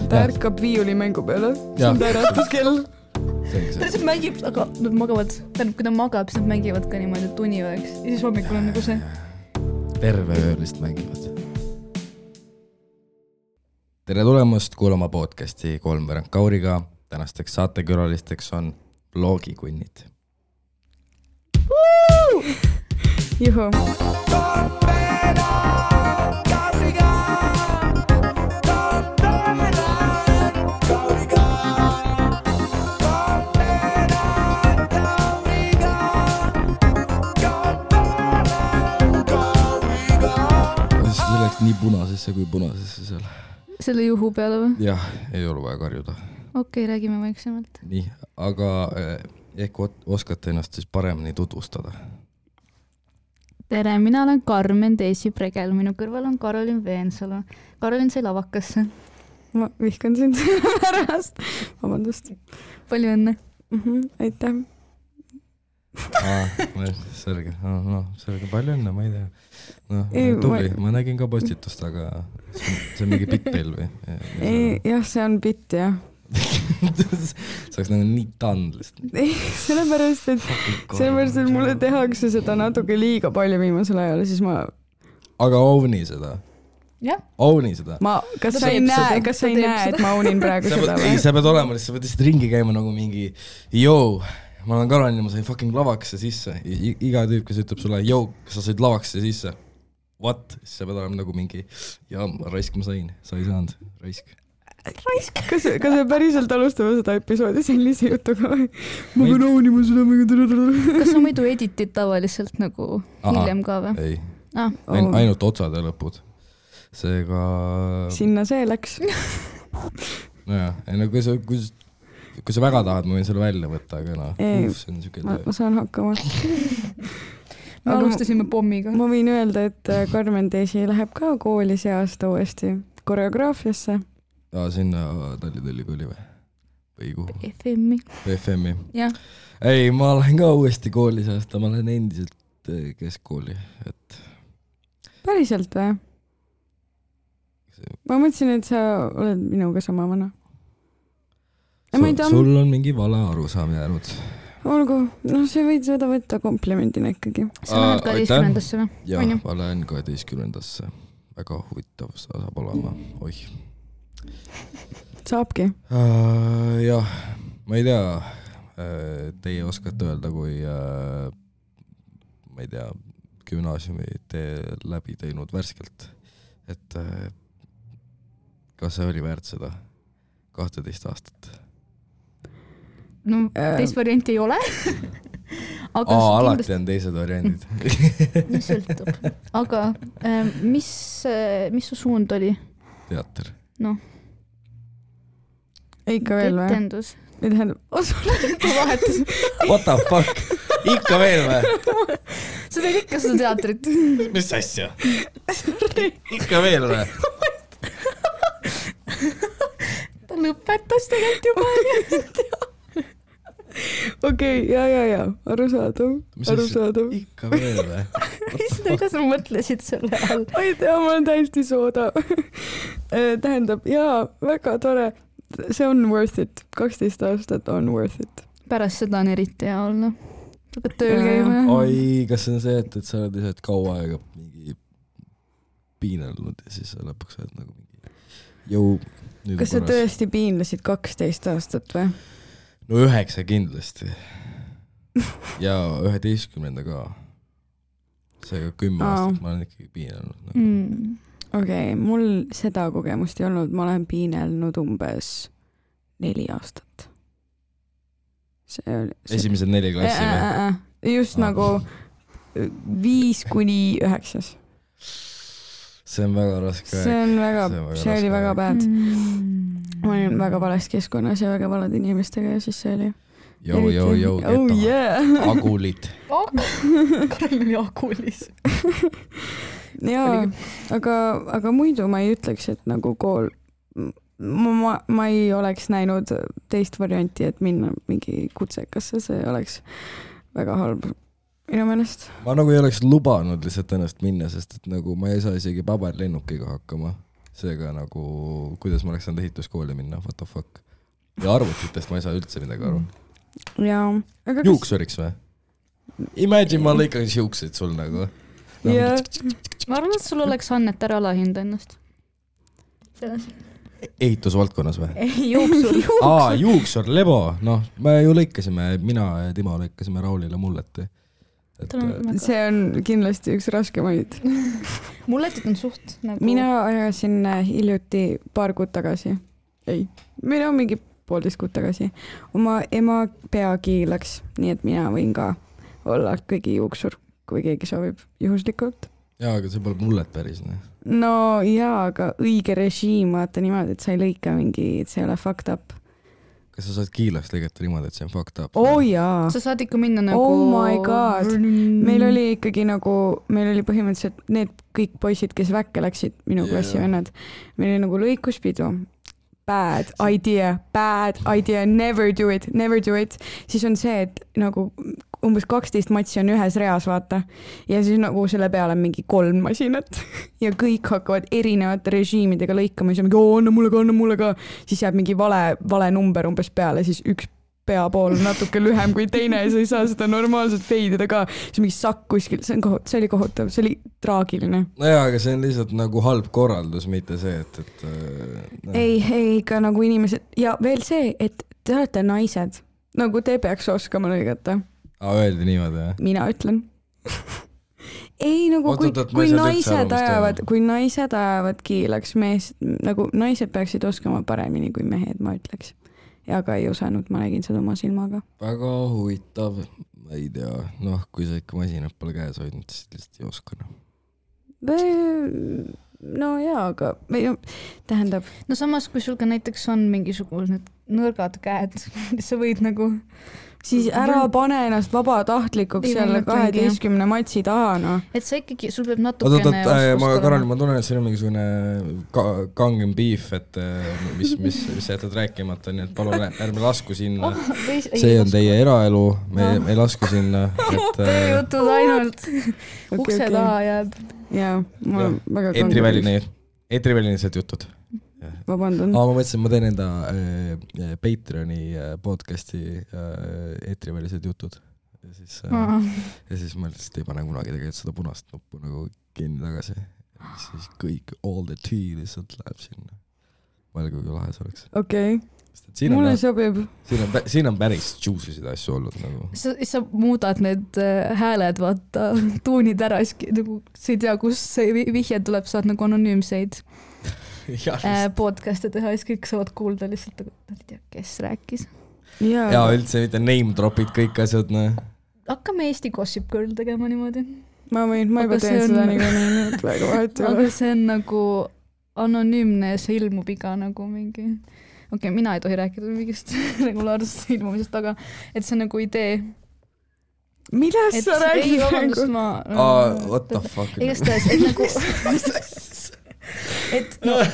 ta ärkab viiulimängu peale. See on ta äratuskell. Ta lihtsalt mängib, aga nad magavad. Tähendab, kui ta magab, siis nad mängivad ka niimoodi tunivõeks. Ja siis hommikul on nagu see. Terve öö lihtsalt mängivad. Tere tulemast kuulama podcasti Kolmveerand Kauriga. Tänasteks saatekülalisteks on Blogikunnid. Juhu. See läks nii punasesse kui punasesse seal. Selle juhu peale või? Jah, ei ole vaja karjuda. Okei, räägime vaiksemalt. Nii, aga ehk oskate ennast siis paremini tutvustada. Tere, mina olen Karmen Teesi-Pregel. Minu kõrval on Karolin Veensalu. Karolin sai lavakasse. Ma vihkan sind pärast. Vabandust. Palju õnne. Aitäh. Selge. Selge, palju õnne, ma ei tea. Tubli, ma nägin ka postitust, aga see on mingi bitt teil või? Jah, see on bitt, jah. See oleks nagu nii tandlist. Sellepärast, et mulle tehakse seda natuke liiga palju viimasel ajal, siis ma... Aga ovni seda? Jah. Ovni seda? Kas sa ei näe, et ma ovnin praegu seda või? Ei, sa pead olema, sa pead lihtsalt ringi käima nagu mingi joo, ma olen Karolin ja ma sain fucking lavakse sisse. Iga tüüp, kes ütleb sulle, joo, kas sa said lavakse sisse? What? Siis sa pead olema nagu mingi, ja raisk ma sain, sa ei saanud, raisk. Kas me päriselt alustame seda episoodi sellise jutuga või? Ma pean aunima seda mingi... Kas sa muidu editid tavaliselt nagu hiljem ka või? Ei, ainult otsad ja lõpud. Seega... Sinna see läks. Nojah, kui sa väga tahad, ma võin selle välja võtta, aga see on siuke... Ma saan hakkama. Me alustasime pommiga. Ma võin öelda, et Karmen Teesi läheb ka kooli see aasta uuesti koreograafiasse. Sinna Tallinna Ülikooli või? Või kuhu? FM-i. Jah. Ei, ma olen ka uuesti koolis aasta, ma olen endiselt keskkooli. Päriselt või? Ma mõtlesin, et sa oled minuga sama vana. Sul on mingi vale arusaam jäänud. Olgu, see võid seda võtta komplimendina ikkagi. Sa lähed 12-ndasse või? Jah, ma lähen 12-ndasse. Väga huvitav saab olema. Oih. Saabki? Jah, ma ei tea, teie oskate öelda, kui ma ei tea, gümnaasiumi tee läbi teinud värskelt, et kas see oli väärt seda 12 aastat? No, teist varianti ei ole. Alati on teised variandid. Mis sõltub. Aga mis su suund oli? Teater. Noh. Ikka veel või? Etendus. Vahetus. What the fuck? Ikka veel või? Sa teed ikka seda teatrit. Mis asja? Ikka veel või? Ta lõpetas tegelikult juba. Okei, ja. Arusaadav. Ikka veel või? Mida sa mõtlesid selle all? Ma ei tea, ma olen täiesti sooda. Tähendab, jaa, väga tore. See on worth it. 12 aastat on worth it. Pärast seda on eriti hea olla. Sa pead tööl käima. Oi, kas see on see, et sa oled lihtsalt kaua aega mingi piinelnud ja siis sa lõpuks oled nagu mingi Kas sa tõesti piinlesid 12 aastat või? No 9 kindlasti. Ja 11 ka. Seega 10 aastat ma olen ikkagi piinelnud. Nagu. Okei, mul seda kogemust ei olnud. Ma olen piinelnud umbes 4 aastat. Esimesed 4 klassi või? Just nagu 5 kuni 9. See on väga raske. See oli väga bad. Ma olin väga vales keskkonnas ja väga valed inimestega ja siis see oli... Jou, Agulid. Karel oli agulis. Jaa, aga muidu ma ei ütleks, et nagu kool... Ma ei oleks näinud teist varianti, et minna mingi kutsekasse, see oleks väga halb minu meelest. Ma nagu ei oleks lubanud lihtsalt ennast minna, sest et nagu ma ei saa isegi paberlennukiga hakkama. seega nagu, kuidas ma oleks saanud ehituskooli minna, what the fuck. Ja arvutitest ma ei saa üldse midagi aru. Jaa. Juuksuriks või? Imagine ma lõikaks juukseid sul nagu. Ma arvan, et sul oleks Annet ära alahinda ennast. Ehitusvaldkonnas või? Juuksur. Juuksur, lebo. Noh, me ju lõikasime, mina ja Timo lõikasime Raulile mulleti. See on kindlasti üks raskemaid. Mulletit on suht nagu... Mina ajasin hiljuti paar kuud tagasi. Ei, mina mingi 1,5 kuud tagasi. Oma ema peagi läks, nii et mina võin ka olla kõigi juuksur, kui keegi soovib juhuslikult. Jaa, aga see pole mullet päris. No jaa, aga õige režiim, vaata niimoodi, et sa ei lõika mingi, et see ei ole fucked up. Kas sa saad kiilaks lõigata niimoodi, et see on fucked up? Oh jaa. Sa saad ikka minna nagu... Oh my god. Meil oli ikkagi nagu, meil oli põhimõtteliselt need kõik poisid, kes väkke läksid, minu klassi vennad. Meil oli nagu lõikuspidu. Bad idea, never do it. Siis on see, et nagu umbes 12 matsi on ühes reas, vaata. Ja siis nagu selle peale on mingi 3 masinat. Ja kõik hakkavad erinevate režiimidega lõikama. Siis on mingi, anna mulle ka. Siis jääb mingi vale number umbes peale. Siis üks pea pool natuke lühem kui teine ja sa ei saa seda normaalselt feidida ka. See mingi sakk kuskil, see oli kohutav, see oli traagiline. No jaa, aga see on lihtsalt nagu halb korraldus, mitte see, et Ei, ikka nagu inimesed ja veel see, et te olete naised, nagu te peaks oskama lõigata. Öeldi niimoodi, jah? Mina ütlen. Ei, nagu kui naised ajavad kiilaks mees, nagu naised peaksid oskama paremini kui mehed, ma ütleks. Ja ka ei osanud, ma nägin seda oma silmaga. Väga huvitav, ma ei tea, kui sa ikka masinad pole käes hoidnud, siis lihtsalt ei oska. No jaa, aga tähendab... No samas, kui sul ka näiteks on mingisugused nõrgad käed, sa võid nagu... Siis ära pane ennast vabatahtlikuks jälle 12 matsi taha, no. Et sa ikkagi, sul peab natukene... Ma tunnen, et siin on mingisugune kangem beef, et mis jätad rääkimata, nii et palun ärme lasku sinna. See on teie eraelu, me ei lasku sinna. Tööjutud ainult. Ukse taha jääb. Jaa, mul on väga kangem. Eetrivälinised jutud. Vabandan. Ma mõtlesin, ma teen enda Patreoni podcasti eetrivälised jutud. Ja siis ma lihtsalt ei pane kunagi tegelikult seda punast nuppu nagu kinni tagasi. Ja siis kõik, all the tea lihtsalt läheb sinna. Mõelge, kui lahe see oleks. Okei. Mulle sobib. Siin on päris juice'isid asju olnud. Nagu. Sa muudad need hääled, vaata, tuunid ära, nagu sa ei tea, kus see vihje tuleb, saad nagu anonüümseid podcast'e teha, siis kõik saavad kuulda lihtsalt, ei tea, kes rääkis. Ja üldse mitte name dropid kõik asjad. Hakkame Eesti Gossip Girl tegema niimoodi. Ma juba teen seda nii, et väga vahet ei ole. Aga see on nagu anonüümne ja see ilmub iga nagu mingi... Okei, mina ei tohi rääkida mingist regulaarsest ilmumisest, aga et see on nagu idee. Millest sa räägid? Ei, vabandust, what the fuck? Igastahes, et nagu...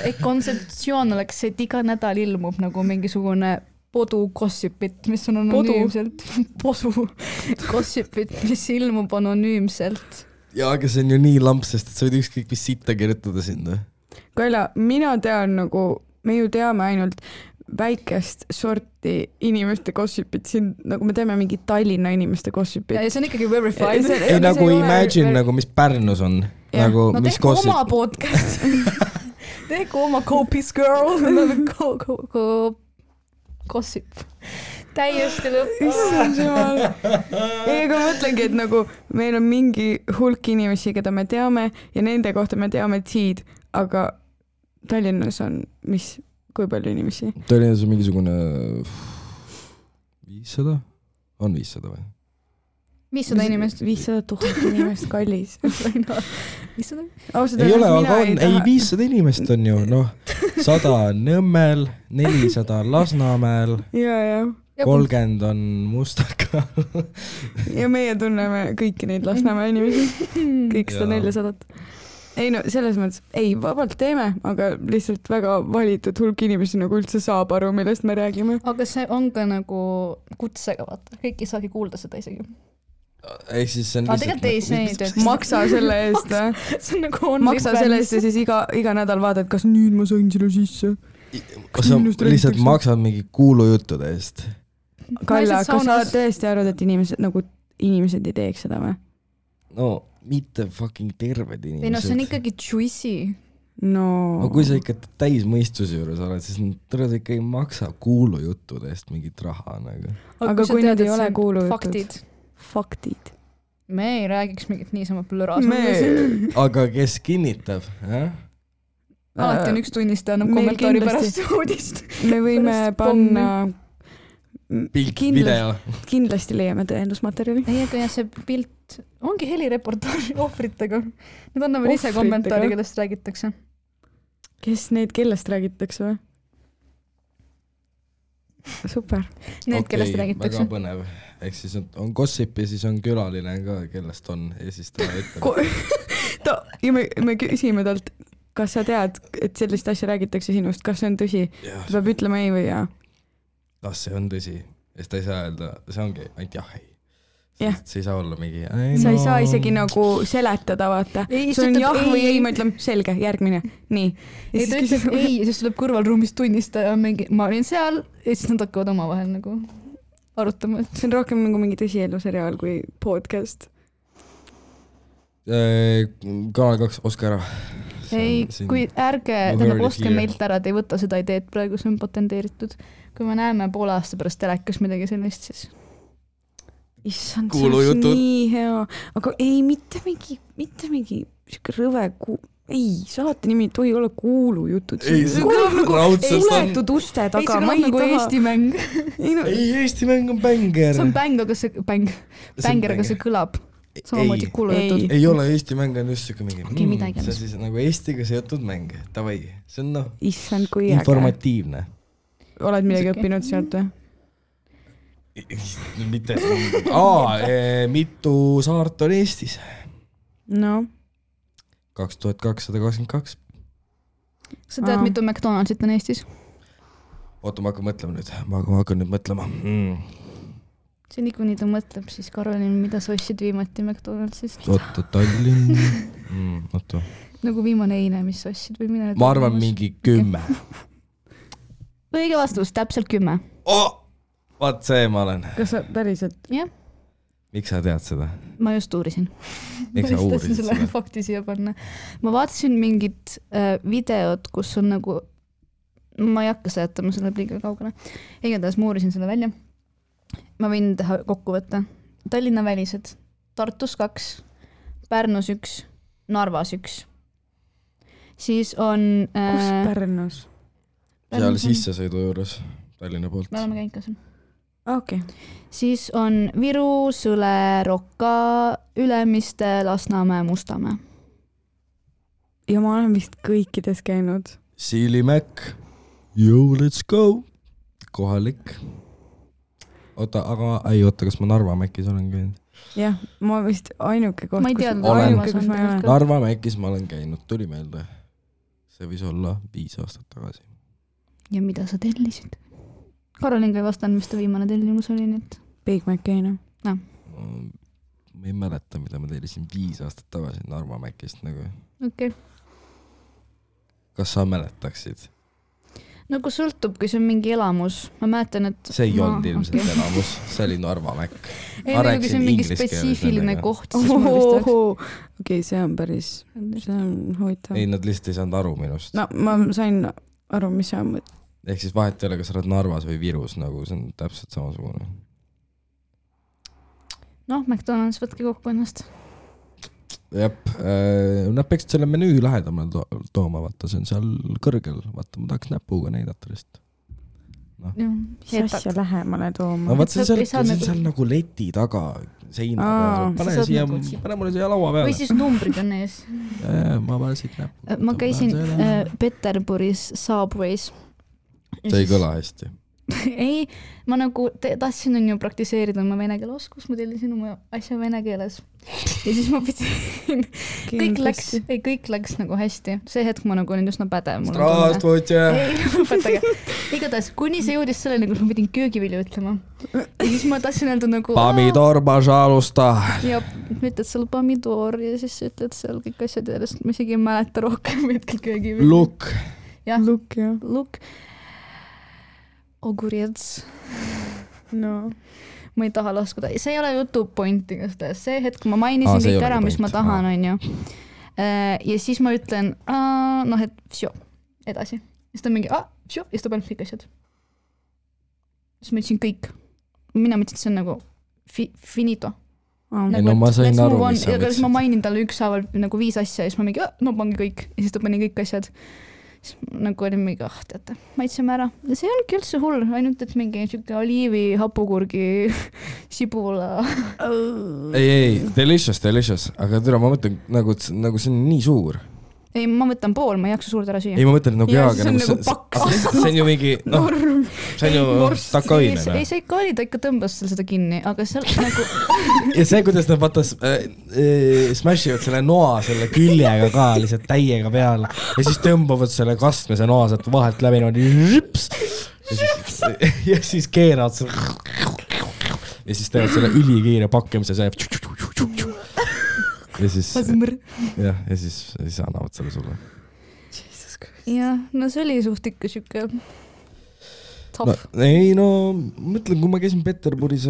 et kontseptsioon oleks, et iga nädal ilmub nagu mingisugune podu gossipit, mis on anonüümselt. Podu gossipit, mis ilmub anonüümselt. Ja, aga see on ju nii lamp, sest sa võid ükskõik mis sitta kirjutada sinna. Kaila, mina tean nagu, me ju teame ainult väikest sorti inimeste gossipit, siin nagu me teeme mingi Tallinna inimeste gossipit. Ja see on ikkagi verified. Ei nagu imagine nagu, mis Pärnus on. Nagu, no tehku oma podcast. Tehku oma Copies Girl. Gossip. Täiesti lõpp. Ei, aga mõtlengi, et nagu meil on mingi hulk inimesi, keda me teame ja nende kohta me teame T-d, aga Tallinnas on kui palju inimesi? Tallinnas on mingisugune 500? On 500 või? 500 inimest. 500 000 inimest, kallis. 500? Ei ole, aga on. Ei, 500 inimest on ju, 100 Nõmmel, 400 Lasnamäel, 30 on Mustakal. Ja meie tunneme kõiki neid Lasnamäe inimesi, kõik 400. Ei no, selles mõttes, ei, vabalt teeme, aga lihtsalt väga valitud hulk inimesi nagu üldse saab aru, millest me räägime. Aga see on ka nagu kutsega, vaata. Kõik ei saagi kuulda seda isegi. ehk siis see on tegelikult ei, see ei tööta. Maksa selle eest See on nagu maksa selle eest ja siis iga nädal vaatad, kas nüüd ma sain selle sisse. Kas sa lihtsalt maksad mingi kuulujuttude eest? Kalle, kas sa tõesti arvad, et inimesed ei teeks seda või? No mitte fucking terved inimesed. Ei no see on ikkagi juicy. No kui sa ikka täismõistuse juures oled, siis tõrjad ikka ei maksa kuulujuttude eest mingit raha nagu. Aga kui need ei ole kuulujutud. Faktid. Me ei räägiks mingit niisama plõras. Aga kes kinnitab? Alati on üks tunnistaja annab kommentaari pärast uudist. Me võime panna pilt, video. Kindlasti leiame tõendusmaterjali. Ei, aga see pilt ongi helireportaaži ohvritega. Need annavad ise kommentaari, kellest räägitakse. Kellest räägitakse või? Super. Need, kellest räägitakse. Väga põnev. Ehk siis on gossip ja siis on külaline ka, kellest on. Ja siis ta ütleb. Ja me küsime talt, kas sa tead, et sellist asja räägitakse sinust, kas see on tõsi? Ta peab ütlema ei või jaa. Kas see on tõsi? Ja ta ei saa öelda, see ongi ainult jah, ei. Yeah. See ei saa olla mingi... Sa ei saa isegi nagu seletada, vaata. See on jah või ei, ma ütlen selge, järgmine. Nii. Ei, ta ütleb ei, siis tuleb kõrvalruumis tunnistaja mingi, ma olin seal ja siis nad hakkavad oma vahel nagu arutama. See on rohkem nagu mingi tõsieluseriaal kui podcast. Kanal 2, oska ära. Ei, kui ärge, tähendab ostke meilt ära, te ei võta seda ideed praegu, see on patenteeritud. Kui me näeme poole aasta pärast telekas midagi sellist, siis... Issand, see oleks nii hea. Aga ei, mitte mingi rõve ei, saate nimi ei tohi olla kuulujutud. Ei, see kõlab nagu suletud uste taga. Ei, see kõlab nagu Eesti mäng. Ei, Eesti mäng on bänger. See on bäng, aga see bänger, aga see kõlab samamoodi kuulujutud. Ei ole Eesti mäng, on just siuke mingi. Okei, midagi. See on siis nagu Eestiga seotud mäng. Tavai, see on Issand, kui informatiivne. Oled midagi õppinud sealt või? Mitte. Mitu saart on Eestis? No. 2222. Sa tead, mitu McDonaldsit on Eestis? Oota, ma hakkan nüüd mõtlema. See nii, kui nii ta mõtleb, siis Karolin, mida sa ostsid viimati McDonaldsist? Oota, Tallinn. Oota. Nagu viimane eile, mis sa ostsid või mina? Ma arvan mingi 10. Õige vastus, täpselt 10. Vaat see ma olen. Kas sa päriselt? Jah. Miks sa tead seda? Ma just uurisin. Miks sa uurisid seda? Fakti siia panna. Ma vaatasin mingit videot, kus on nagu, ma ei hakka seletama, see läheb liiga kaugele. Igatahes ma uurisin selle välja. Ma võin teha kokkuvõtte. Tallinna välised. Tartus 2, Pärnus 1, Narvas 1. Siis on... Kus Pärnus? Seal sissesõidu juures Tallinna poolt. Me oleme käinud ka seal. Okay. Siis on Viru, Sõle, Rokka, Ülemiste, Lasnamäe, Mustamäe. Ja ma olen vist kõikides käinud. Siilimäk. Yo, let's go. Kohalik. Oota, kas ma Narva Mäkis olen käinud? Jah, ma vist ainuke koht, kus ma olen. Narva Mäkis ma olen käinud, tuli meelde. See võis olla 5 aastat tagasi. Ja mida sa tellisid? Karolin ka ei vastanud, mis ta viimane tellimus oli nüüd. Big Mac käina. No. Ma ei mäleta, mida ma tellisin 5 aastat tagasi Narva Mäkist nagu. Okei. Kas sa mäletaksid? Nagu sõltub, kui see on mingi elamus. Ma mäletan, et... See ei olnud ilmselt elamus, see oli Narva Mäkk. Ei, kui see on mingi spetsiifiline koht, siis ma vist oleks... Okei, see on päris... See on huvitav. Ei, nad lihtsalt ei saanud aru minust. No, ma sain aru, mis sa mõtled. Ehk siis vahet ei ole, kas sa oled Narvas või Virus, nagu see on täpselt samasugune. Noh, McDonald's võtke kokku ennast. Jep, nad peaksid selle menüü lähedamal tooma, vaata, see on seal kõrgel, vaata, ma tahaks näpuga näidata lihtsalt. No. Mis asja lähemale tooma? No vaat see on seal nagu leti taga seina peal. Pane mulle siia laua peale. Või siis numbrid on ees. Ma panen siit näpu. Ma käisin Peterburis Subways. See ei kõla hästi. ei, ma nagu tahtsin on ju praktiseerida oma vene keele oskust, ma tellisin oma asja vene keeles. Ja siis ma pidin, kõik läks nagu hästi. See hetk ma nagu olin üsna pädev. Ei, lõpetage. Igatahes, kuni see jõudis selleni, kus ma pidin köögivilju ütlema. Ja siis ma tahtsin öelda nagu... Pomidor, pažalusta. Ja ütled seal pomidor ja siis ütled seal kõik asjad järjest. Ma isegi ei mäleta rohkem hetkel köögivilju. Lukk. Jah, Lukk. Ogurets. No. Ma ei taha laskuda. See ei ole jutu point igastahes. See hetk, kui ma mainisin kõik ära, mis ma tahan, on ju. Ja siis ma ütlen, noh, et vsjo, edasi. Ja siis ta mingi, vsjo, ja siis ta paneb kõik asjad. Siis ma ütlesin kõik. Mina mõtlesin, et see on nagu finito. Ei, no ma sain aru, mis sa mõtlesid. Ma mainin talle ükshaaval nagu 5 asja ja siis ma mingi, no pangi kõik. Ja siis ta pani kõik asjad. Nagu oli mingi, teate, maitseme ära. Ja see ongi üldse hull, ainult et mingi siuke oliivi, hapukurgi, sibula. Ei, delicious, aga tere, ma mõtlen, nagu see on nii suur. Ei, ma võtan pool, ma ei jaksa suurt ära süüa. Ei, ma mõtlen nagu jaaga. See on ju mingi, noh, see on ju takaine. Ei, see ikka oli, ta ikka tõmbas seda kinni, aga seal nagu... Ja see, kuidas nad vatas smashivad selle noa selle küljega ka lihtsalt täiega peal ja siis tõmbavad selle kastmise noa sealt vahelt läbi ja siis keeravad selle ja siis teevad selle ülikiire pakkimise see ja siis ja siis annavad selle sulle. Jah, no see oli suht ikka siuke no, ei, no mõtlen, kui ma käisin Peterburis,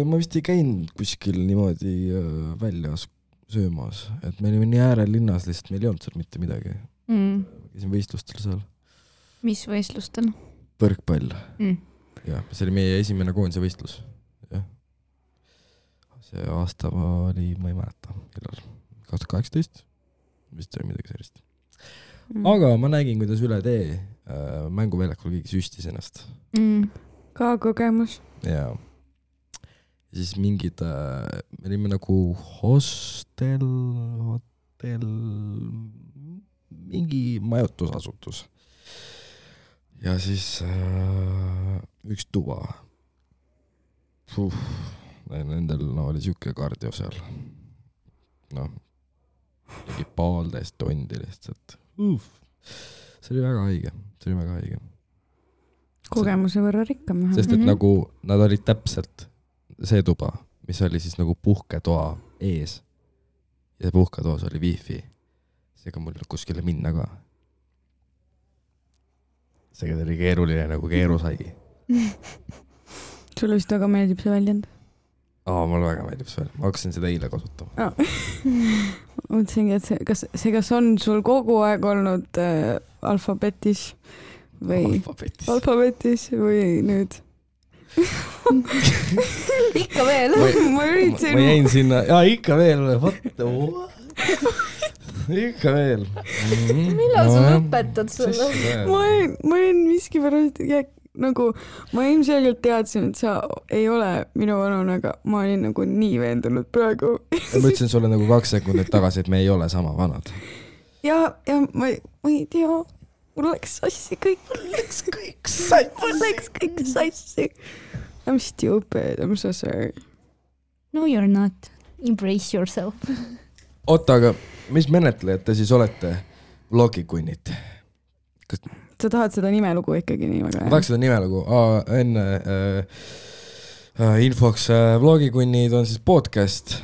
ma vist ei käinud kuskil niimoodi väljas söömas, et me olime nii äärelinnas, lihtsalt meil ei olnud seal mitte midagi. Käisin võistlustel seal. Mis võistlustel? Põrkpall. Ja, see oli meie esimene koondise võistlus. Ja. See aasta oli, ma ei mäleta, 2018, vist oli midagi sellist. Aga ma nägin, kuidas üle tee mänguväljakul keegi süstis ennast. Ka kogemus. Ja siis mingid, me olime nagu hostel, mingi majutusasutus. Ja siis üks tuba. Nendel oli siuke kardio seal. Noh, mingi 1,5 tundi lihtsalt. See oli väga haige. Kogemuse võrra rikkam. Sest et nagu nad olid täpselt see tuba, mis oli siis nagu puhketoa ees. Ja puhketoas oli wifi. Seega mul kuskile minna ka. Seega oli keeruline nagu keeru sai. Sulle vist väga meeldib see väljend? Mulle väga meeldib see väljend. Ma hakkasin seda eile kasutama. Mõtlesingi, et kas on sul kogu aeg olnud alfabetis või nüüd? Ikka veel. Ma jäin sinna, ikka veel. Ikka veel. Millal sa lõpetad selle? Ma olin miskipärast nagu, ma ilmselgelt teadsin, et sa ei ole minu vanune, aga ma olin nagu nii veendunud praegu. Ma ütlesin sulle nagu 2 sekundit tagasi, et me ei ole sama vanad. Ja ma ei tea, mul läks sassi kõik. Mul läks kõik sassi. I'm stupid, I'm so sorry. No you're not. Embrace yourself. Oota, aga mis menetlejad te siis olete vlogikunnid? Sa tahad seda nimelugu ikkagi nii väga? Ma tahaks seda nimelugu. Enne infoks vlogikunnid on siis podcast.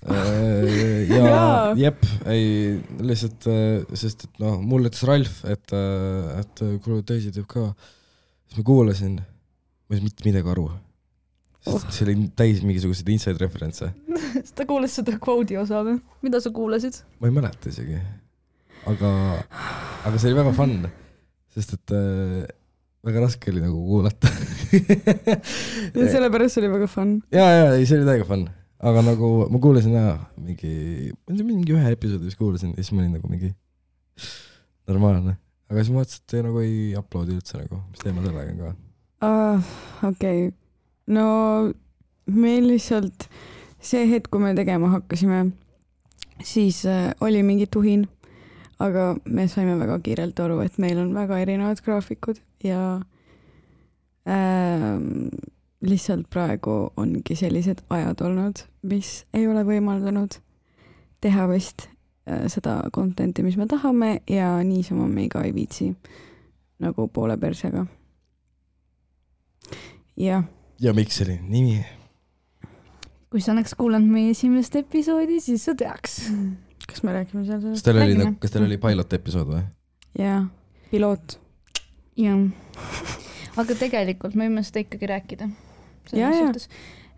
Ja jep, ei lihtsalt, sest et noh, mul ütles Ralf, et kuule teisi teeb ka. Siis ma kuulasin, ma ei mitte midagi aru. See oli täis mingisugused inside reference. Ta kuulas seda quote'i osa või? Mida sa kuulasid? Ma ei mäleta isegi. Aga see oli väga fun. Sest et väga raske oli nagu kuulata. Ja sellepärast oli väga fun. Ja, see oli täiega fun. Aga nagu ma kuulasin mingi ühe episoodi, mis kuulasin, ja siis ma olin nagu mingi normaalne. Aga siis ma vaatasin, et nagu ei uploadi üldse nagu, mis teema sellega ka. Okei. No meil lihtsalt see hetk, kui me tegema hakkasime, siis oli mingi tuhin. Aga me saime väga kiirelt aru, et meil on väga erinevad graafikud ja Lihtsalt praegu ongi sellised ajad olnud, mis ei ole võimaldanud teha vist seda content'i, mis me tahame ja niisama me ka ei viitsi nagu poole persega. Ja miks selline nimi? Kui sa oleks kuulanud meie esimest episoodi, siis sa teaks. Kas me räägime seal sellest? Kas teil oli pilot episood või? Jaa, piloot. Jah. Aga tegelikult me võime seda ikkagi rääkida.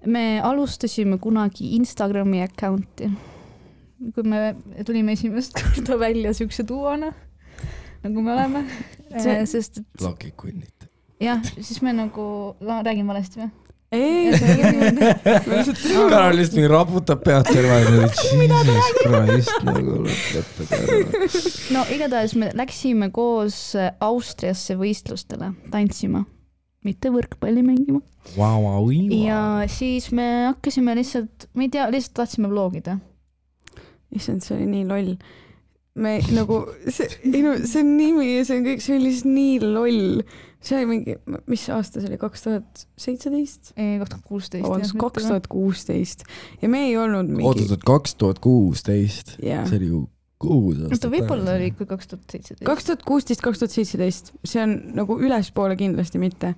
Me alustasime kunagi Instagrami accounti. Kui me tulime esimest korda välja siukse duona, nagu me oleme. Sest et... Lakikunnid. Jah, siis me nagu... Räägin valesti või? Ei, Karol lihtsalt mingi raputab pead terve. Jesus Christ, nagu lõpetada. No igatahes me läksime koos Austriasse võistlustele tantsima, mitte võrkpalli mängima. Ja siis me hakkasime lihtsalt, ma ei tea, lihtsalt tahtsime vlogida. Issand, see oli nii loll. Me nagu, see nimi ja see on kõik, see oli lihtsalt nii loll. See oli mingi, mis aasta see oli? 2017? 2016. 2016. Ja me ei olnud mingi... Oodatud 2016. Yeah. See oli ju 6 aastat. Võib-olla oli ikka 2017. 2016-2017. See on nagu ülespoole kindlasti mitte.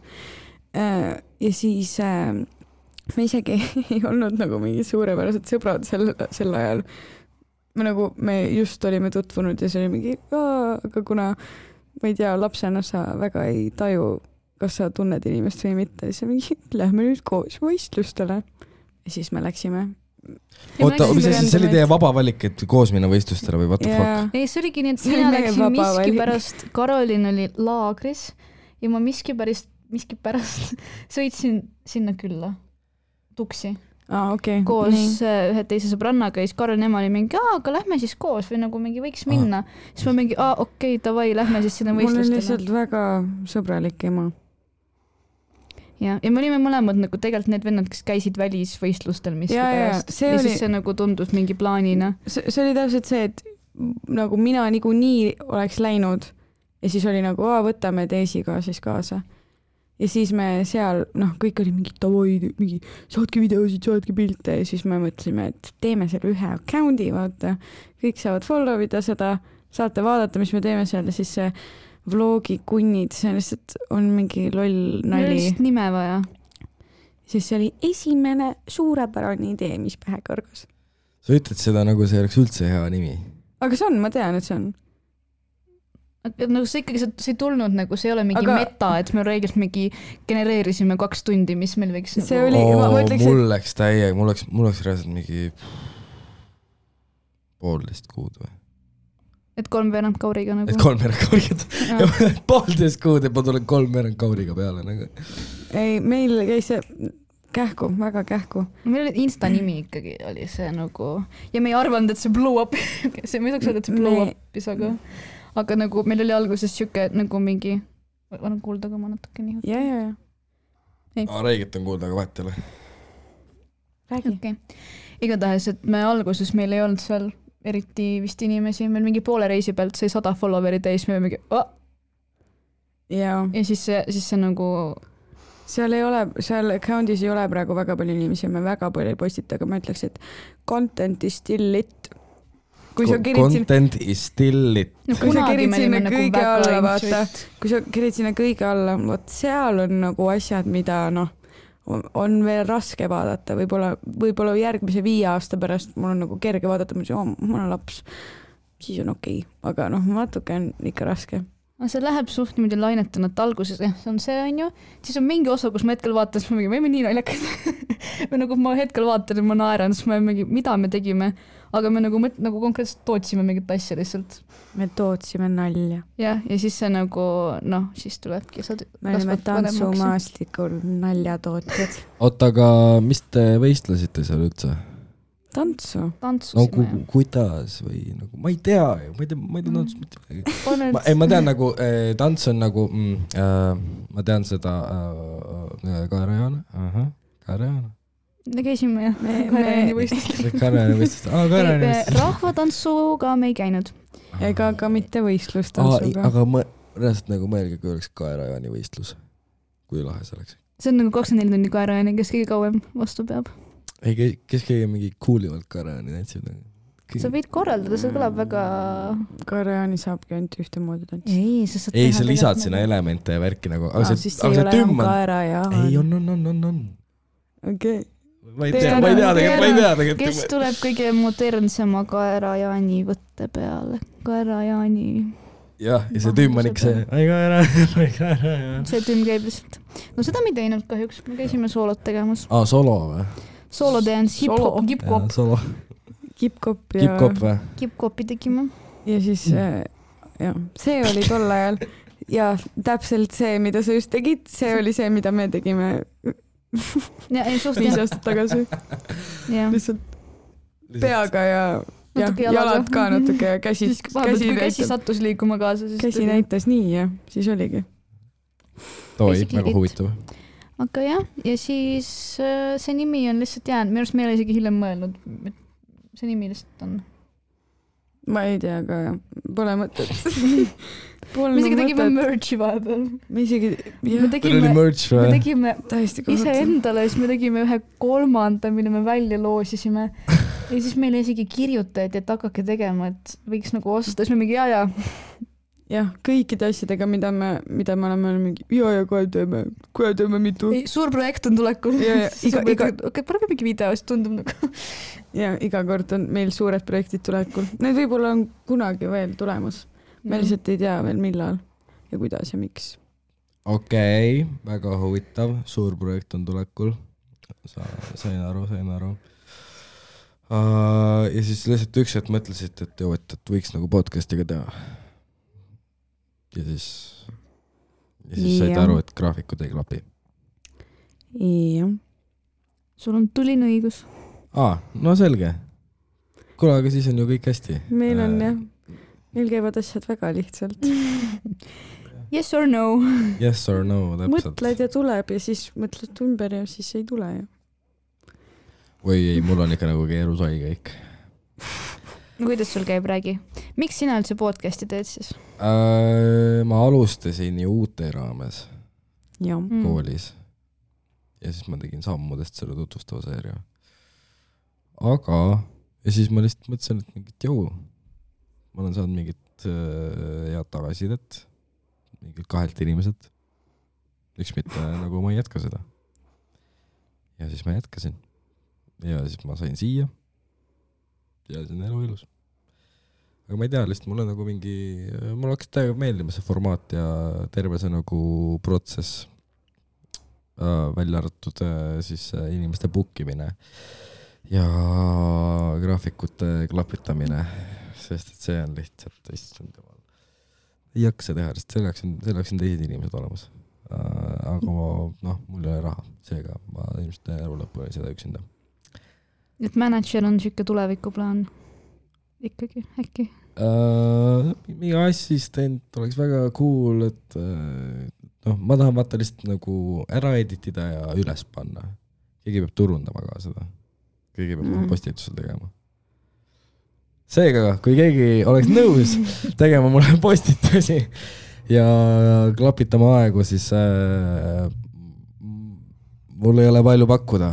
Ja siis me isegi ei olnud nagu mingi suurepärased sõbrad sel ajal. Me just olime tutvunud ja see oli mingi, aga kuna ma ei tea, lapsena sa väga ei taju, kas sa tunned inimest või mitte, siis mingi, lähme nüüd koos võistlustele. Ja siis me läksime. Oota, mis see oli teie vaba valik, et koos minna võistlustele või what the fuck? Ei, see oligi nii, et mina läksin miski pärast, Karolin oli laagris ja ma miski pärast sõitsin sinna külla, tuksi. Okay. Koos ühe teise sõbrannaga ja siis Karol ema oli mingi, aga lähme siis koos või nagu mingi võiks minna. Siis ma mingi, okei, davai, lähme siis sinna võistlustele. Mul on lihtsalt väga sõbralik ema. Ja me olime mõlemad nagu tegelikult need vennad, kes käisid välisvõistlustel miski pärast. Ja siis see nagu tundus mingi plaanina. See oli täpselt see, et nagu mina nii oleks läinud ja siis oli nagu, võtame teisiga siis kaasa. Ja siis me seal, kõik oli mingi tavoi, mingi saatke videosid, saatke pilte ja siis me mõtlesime, et teeme selle ühe account'i, vaata. Kõik saavad follow ida seda, saate vaadata, mis me teeme seal ja siis see vlogi kunnid, see lihtsalt on mingi loll nali. Lihtsalt nime vaja. Siis see oli esimene suurepärane idee, mis pähe kõrgas. Sa ütled seda nagu see oleks üldse hea nimi. Aga see on, ma tean, et see on. Nagu see ikkagi, see ei tulnud nagu, see ei ole mingi meta, et me reeglilt mingi genereerisime 2 tundi, mis meil võiks see nagu... oli, mul läks täiega, mul oleks reaalselt mingi 1,5 kuud või? Et 3 kauriga nagu? Et 3 kauriga, 1,5 kuud, et ma tulen 3 kauriga peale nagu. Ei, meil käis see kähku, väga kähku. Meil oli Insta nimi ikkagi oli see nagu, ja me ei arvanud, et see blow up, see ma ei saaks öelda, et see blow up'is, aga nagu meil oli alguses siuke nagu mingi, olen kuulda ka ma natuke nii. Ja. Räägit on kuulda, aga vahet ei ole. Räägi. Okay. Igatahes, et me alguses meil ei olnud seal eriti vist inimesi, meil mingi poole reisi pealt sai 100 followeri täis, me mingi Ja siis see nagu... Seal account'is ei ole praegu väga palju inimesi, me väga palju ei postita, aga ma ütleks, et content is still lit. Content is still lit. Kui sa kerid sinna kõige alla, vaata, kui sa kerid sinna kõige alla, võt seal on nagu asjad, mida on veel raske vaadata, võib-olla järgmise 5 aasta pärast mul on nagu kerge vaadata, mul on laps, siis on okei, aga natuke on ikka raske. See läheb suht niimoodi lainetuna, et alguses see on see, on ju, siis on mingi osa, kus ma hetkel vaatan, siis ma mingi, me olime nii naljakad. Või nagu ma hetkel vaatan ja ma naeran, siis ma mingi, mida me tegime, aga me nagu konkreetselt tootsime mingit asja lihtsalt. Me tootsime nalja. Ja siis see nagu, siis tulebki. Me olime tantsumaastikul naljatootjad. Oota, aga mis te võistlesite seal üldse? Tantsu. Kuidas või nagu, ma ei tea tantsu mitte midagi. Ma tean nagu, tants on nagu, ma tean seda Kaarajana. Me käisime Kaarajani võistlust. Rahvatantsuga me ei käinud. Ega ka mitte võistlustantsuga. Aga reaalselt nagu mõelge, kui oleks Kaarajani võistlus. kui lahe see oleks. See on nagu 24 tundi kaerajaani, kes kõige kauem vastu peab. Ei, kes kõige mingi coolivalt kaerajaani tantsib? Sa võid korraldada, see kõlab väga... Kaerajaani saabki ainult ühte moodi tantsida. Ei, sa lisad sinna elemente ja värki nagu. Siis see ei ole enam kaerajaan. Ei, on. Okei. Ma ei tea tegelikult. Kes tuleb kõige modernsema kaerajaani võtte peale? Kaerajaani... Jah, ja see tümm on ikka see, ai kaerajaan. See tümm käib lihtsalt. No seda me ei teinud kahjuks, me käisime soolot tegemas. Solo või? Solo dance, hip-hop, kip-kop. Solo. Kip-kop ja... Kip-kop või? Kip-kopi tegime. Ja siis, see oli tol ajal. Ja täpselt see, mida sa just tegid, see oli see, mida me tegime 5 aastat tagasi. Lihtsalt peaga ja jalad ka natuke ja käsi sattus liikuma kaasa. Käsi näitas nii ja siis oligi. Toi, väga huvitav. Aga jah, ja siis see nimi on lihtsalt jäänud. Minu arust me ei ole isegi hiljem mõelnud, et see nimi lihtsalt on. Ma ei tea, aga pole mõtet. Me isegi tegime merch'i vahepeal. Me isegi, me tegime ise endale, siis me tegime ühe 3, mille me välja loosisime. Ja siis meile isegi kirjutati, et hakake tegema, et võiks nagu osta. Siis me mingi jah, kõikide asjadega, mida me oleme mingi kohe teeme mitu. Suur projekt on tulekul. Parem mingi video, siis tundub nagu. Ja iga kord on meil suured projektid tulekul. Need võib-olla on kunagi veel tulemas. Me lihtsalt ei tea veel millal ja kuidas ja miks. Okei, väga huvitav. Suur projekt on tulekul. Sain aru. Ja siis lihtsalt üks hetk mõtlesid, et võiks nagu podcastiga teha. Ja siis said aru, et graafikud ei klapi. Jah. Sul on tuline õigus. No selge. Kuule, aga siis on ju kõik hästi. Meil on jah. Meil käivad asjad väga lihtsalt. Yes or no. Yes or no, täpselt. Mõtled ja tuleb ja siis mõtled ümber ja siis ei tule ju. Või ei, mul on ikka nagu keerusai kõik. No kuidas sul käib, räägi? Miks sina üldse podcasti teed siis? Ma alustasin ju uute raames koolis. Ja siis ma tegin sammudest selle tutvustava seeria. Aga, ja siis ma lihtsalt mõtlesin, et mingit ma olen saanud mingit head tagasisidet, mingit 2 inimeselt. Üks mitte, nagu ma ei jätka seda. Ja siis ma jätkasin. Ja siis ma sain siia. Ja see on elu ilus. Aga ma ei tea, lihtsalt mulle nagu mul hakkas täiega meeldima see formaat ja terve see nagu protsess välja arvatud siis inimeste bookimine ja graafikute klapitamine, sest et see on lihtsalt ei jaksa teha, sest selleks on teised inimesed olemas. Aga mul ei ole raha, seega ma ilmselt elu lõppu seda üksinda. Et manager on siuke tulevikuplaan ikkagi, äkki? Mingi assistent oleks väga cool, et ma tahan vaata lihtsalt nagu ära editida ja üles panna. Keegi peab turundama ka seda. Keegi peab postitusel tegema. Seega, kui keegi oleks nõus tegema mulle postitusi ja klapitama aegu, siis mul ei ole palju pakkuda,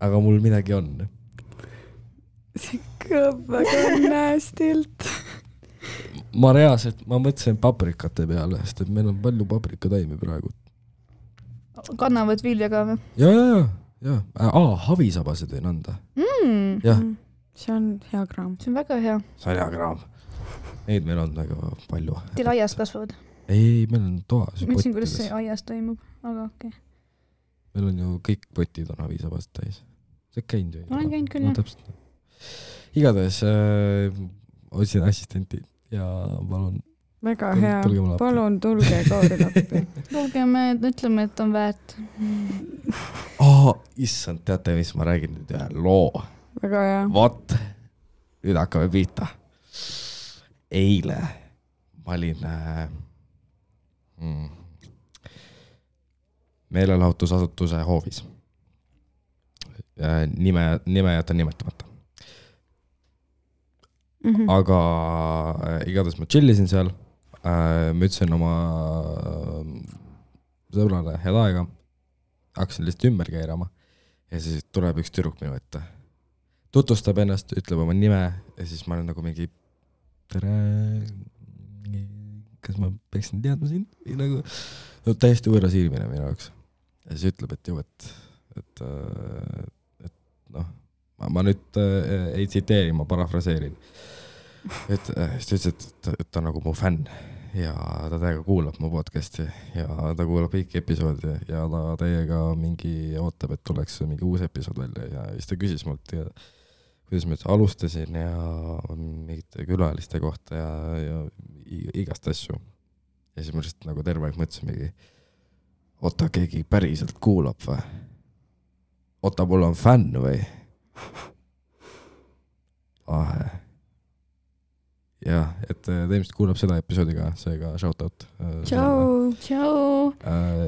aga mul midagi on. See kõlab väga näästilt. Ma mõtlesin paprikate peale, sest et meil on palju paprikataimi praegu. Kannavad vilja ka või? Ja. Havisabase tõin anda. Jah. See on hea kraam. See on väga hea. See on hea kraam. Neid meil on väga palju. Teil aias kasvavad? Ei, meil on toas. Mõtlesin, kuidas see aias toimub, aga okei. Meil on ju kõik potid on havisabast täis. See käinud ju. Olen käinud küll, jah. Igatahes otsin assistenti ja palun. Väga hea. Palun tulge Kaari appi. Tulge, me ütleme, et on väärt. Issand, teate, mis ma räägin nüüd ühe loo. Väga hea. Vot, nüüd hakkame pihta. Eile ma olin meelelahutusasutuse hoovis. Nime jätan nimetamata. Aga igatahes ma chillisin seal, ma ütlesin oma sõbrale head aega, hakkasin lihtsalt ümber keerama ja siis tuleb üks tüdruk minu ette. Tutvustab ennast, ütleb oma nime ja siis ma olen nagu mingi tere, kas ma peaksin teadma sind? Või nagu no, täiesti võõras ilmine minu jaoks. Ja siis ütleb, et ju, et noh, ma nüüd ei tsiteeri, ma parafraseerin. Et siis ütles, et ta on nagu mu fänn ja ta täiega kuulab mu podcasti ja ta kuulab kõiki episoodi ja ta täiega mingi ootab, et tuleks mingi uus episood välja ja siis ta küsis mult ja kuidas ma alustasin ja mingite külaliste kohta ja igast asju. Ja siis ma lihtsalt nagu terve aeg mõtlesin mingi, oota, keegi päriselt kuulab või? Oota, mul on fänn või? Jah, et teemist kuulab seda episoodiga, seega shoutout. Tšau.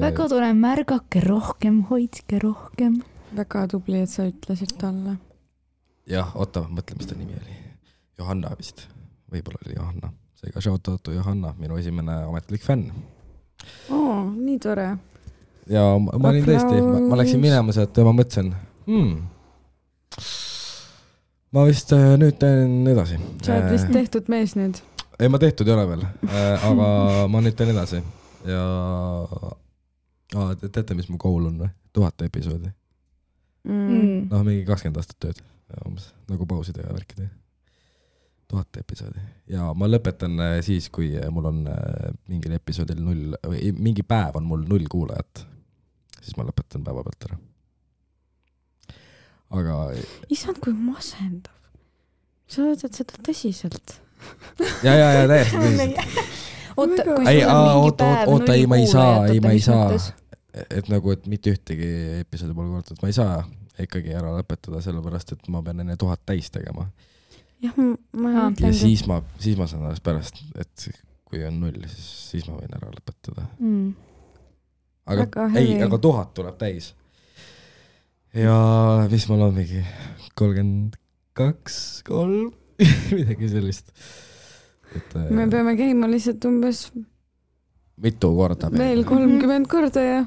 Väga tore, märgake rohkem, hoidke rohkem. Väga tubli, et sa ütlesid talle. Jah, oota, mõtle, mis ta nimi oli. Johanna vist. Võib-olla oli Johanna. Seega shoutout Johanna, minu esimene ametlik fänn. Nii tore. Ja ma olin tõesti, ma läksin minema sealt ja ma mõtlesin, ma vist nüüd teen edasi. Sa oled vist tehtud mees nüüd? Ei, ma tehtud ei ole veel, aga ma nüüd teen edasi. Ja teate, mis mu goal on või? 1000 episoodi. Noh, mingi 20 aastat tööd. Nagu pauside ja värkide. 1000 episoodi. Ja ma lõpetan siis, kui mul on mingil episoodil 0, või mingi päev on mul 0 kuulajat. Siis ma lõpetan päeva pealt ära. Aga... Isand, kui masendav. Sa võtad seda tõsiselt. Ja, täiesti tõsiselt. Oota, kui sul on mingi päev 0 kuulajat, ma ei saa. Et nagu, et mitte ühtegi episoodi pole kuulatud, ma ei saa ikkagi ära lõpetada, sellepärast, et ma pean enne 1000 täis tegema. Jah, ma ja siis ma saan alles pärast, et kui on 0, siis ma võin ära lõpetada. Aga 1000 tuleb täis. Ja mis mul on mingi 32, 3, midagi sellist. Me peame käima lihtsalt umbes mitu korda. Veel 30 korda ja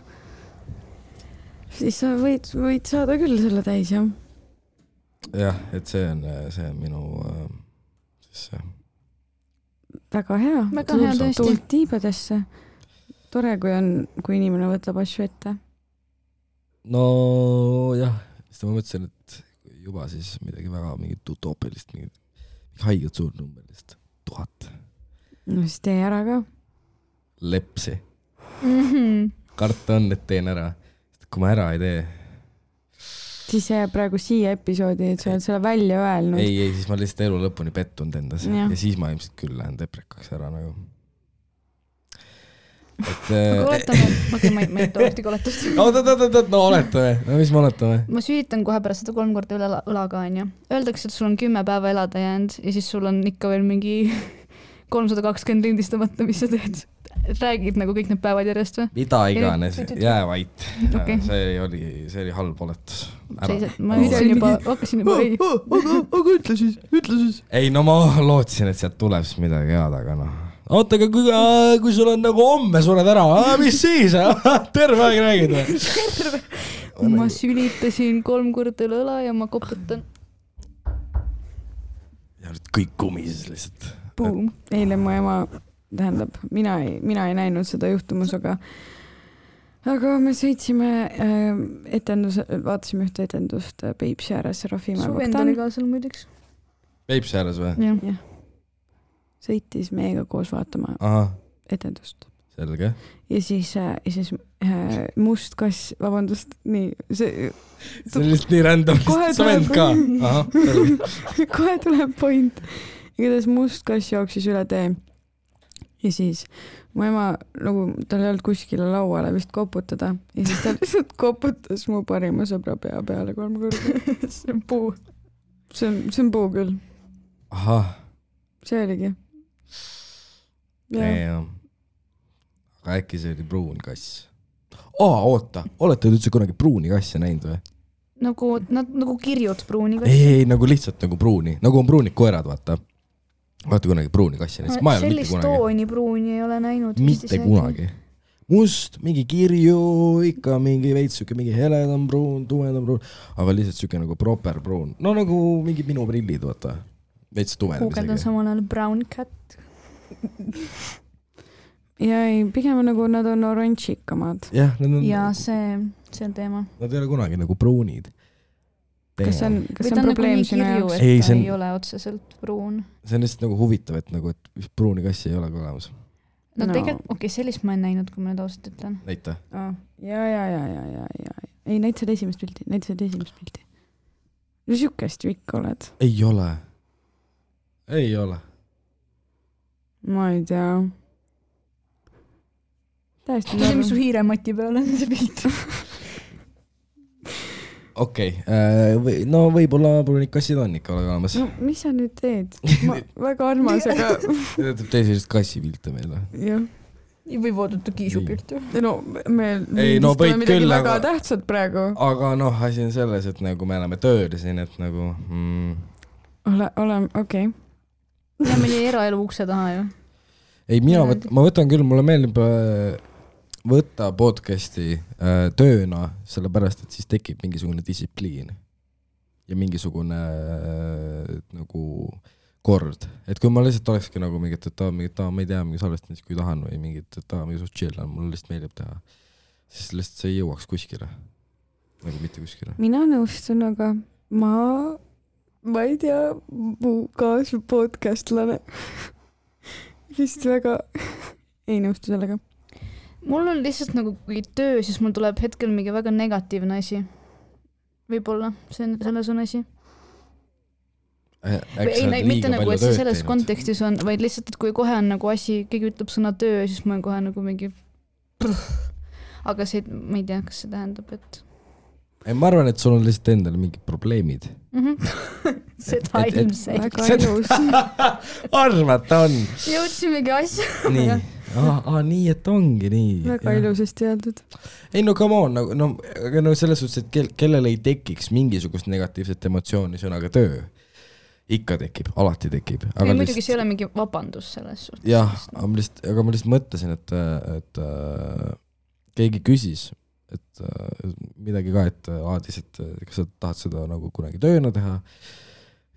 siis sa võid saada küll selle täis, jah. Jah, et see on minu siis väga hea. Väga hea tõesti. Tuult tiibadesse. Tore, kui inimene võtab asju ette. No jah, siis ma mõtlesin, et juba siis midagi väga mingit utoopilist, mingit haiget suurnumberist 1000. No siis tee ära ka. Lepsi. Karta on, et teen ära. Kui ma ära ei tee. Siis jääb praegu siia episoodi, et sa oled selle välja öelnud. Ei, siis ma lihtsalt elu lõpuni pettunud endas ja siis ma ilmselt küll lähen deprekaks ära nagu. Aga oletame, ma ei tohti koletust. No oletame, mis me oletame? Ma süüritan kohe pärast seda 3 korda üle õlaga, on ju. Öeldakse, et sul on 10 päeva elada jäänud ja siis sul on ikka veel mingi 320 lindistamata, mis sa teed. Räägid nagu kõik need päevad järjest või? Mida iganes, jää vait. Okay. See oli halb oletus. Ma hakkasin juba ei. Aga ütle siis. Ei, no ma lootsin, et sealt tuleb siis midagi head, aga noh. Oota, aga kui sul on nagu homme sured ära, mis siis? Terve aeg räägid või? Ma sülitasin 3 korda üle õla ja ma koputan. Ja nüüd kõik kumises lihtsalt. Boom. Eile mu ema, tähendab, mina ei näinud seda juhtumus, aga me sõitsime vaatasime ühte etendust Peipsi ääres Rafimäe Su vend oli ka seal muideks. Peipsi ääres või? Jah. Sõitis meiega koos vaatama etendust. Selge. Ja siis must kass, vabandust, nii. See on lihtsalt nii random, sa vend ka. Kohe tuleb point. Igatahes must kass jooksis üle tee. Ja siis mu ema, nagu tal ei olnud kuskile lauale vist koputada. Ja siis ta lihtsalt koputas mu parima sõbra pea peale 3 korda. See on puu. See on puu küll. See oligi. Aga äkki see oli pruun kass. Oota, olete üldse kunagi pruuni kassi näinud või? Nagu kirjud pruuni kassi. Ei, nagu lihtsalt nagu pruuni. Nagu on pruunid koerad, vaata. Vaata kunagi pruuni kassi näinud. Sellist tooni pruuni ei ole näinud. Mitte kunagi. must, mingi kirju, ikka mingi veits siuke mingi heledam pruun, tumedam pruun, aga lihtsalt siuke nagu proper pruun. No nagu mingi minu prillid, vaata. Veits tumedam isegi. Kuuged on samal ajal brown cat. ja ei, pigem nagu nad on oranžikamad. Jah, nad on... Ja see on teema. Nad ei ole kunagi nagu pruunid. Kas see on probleem sinu jaoks? Ei, ta ei ole otseselt pruun. See on lihtsalt nagu huvitav, et nagu, et pruuni kassi ei ole ka olemas. No tegelikult, sellist ma en näinud, kui ma nüüd ausalt ütlen. Näita. Ja. Ei, näitasid esimest pilti. No siukest ju ikka oled. Ei ole. Ma ei tea. Täiesti see, mis su hiiremati peal on see pilt. Okei, no võib-olla pruunid kassid on ikka olemas. No, mis sa nüüd teed? Väga armas, aga... Teeb sellisest kassipilte meile. Jah. Või voodata kiisupilt. No, me võid midagi küll, väga tähtsad praegu. Aga asi on selles, et nagu me oleme tööl siin, et nagu... Okei. Ja meie eraelu ukse taha ju. Ei, ma võtan küll, mulle meeldib... võtta podcasti tööna, sellepärast, et siis tekib mingisugune distsipliin ja mingisugune nagu kord. Et kui ma lihtsalt olekski nagu mingit, et ma ei tea, mingi salvestamist, kui tahan või mingit, et mingi suht chill on, mulle lihtsalt meeldib teha, siis lihtsalt see ei jõuaks kuskile. Nagu mitte kuskile. Mina nõustun, aga ma ei tea, mu kaasa podcastlane vist väga ei nõustu sellega. Mul on lihtsalt nagu kui töö, siis mul tuleb hetkel mingi väga negatiivne asi. Võib-olla, selles on asi. Mitte nagu, et see selles kontekstis on, vaid lihtsalt, et kui kohe on nagu asi, keegi ütleb sõna töö, siis ma olen kohe nagu mingi... Aga see, ma ei tea, kas see tähendab, et... Ma arvan, et sul on lihtsalt endal mingid probleemid. Seda ilmselt. Väga ilus. Arvata on. Jõudsimegi asja. Nii. Nii, et ongi nii. Väga ilusasti öeldud. Ei, no come on, no selles suhtes, et kellel ei tekiks mingisugust negatiivset emotsiooni sõnaga töö. Ikka tekib, alati tekib. Aga muidugi see ei ole mingi vabandus selles suhtes. Jah, aga ma lihtsalt mõtlesin, et keegi küsis, et midagi ka, et aadis, et kas sa tahad seda nagu kunagi tööna teha.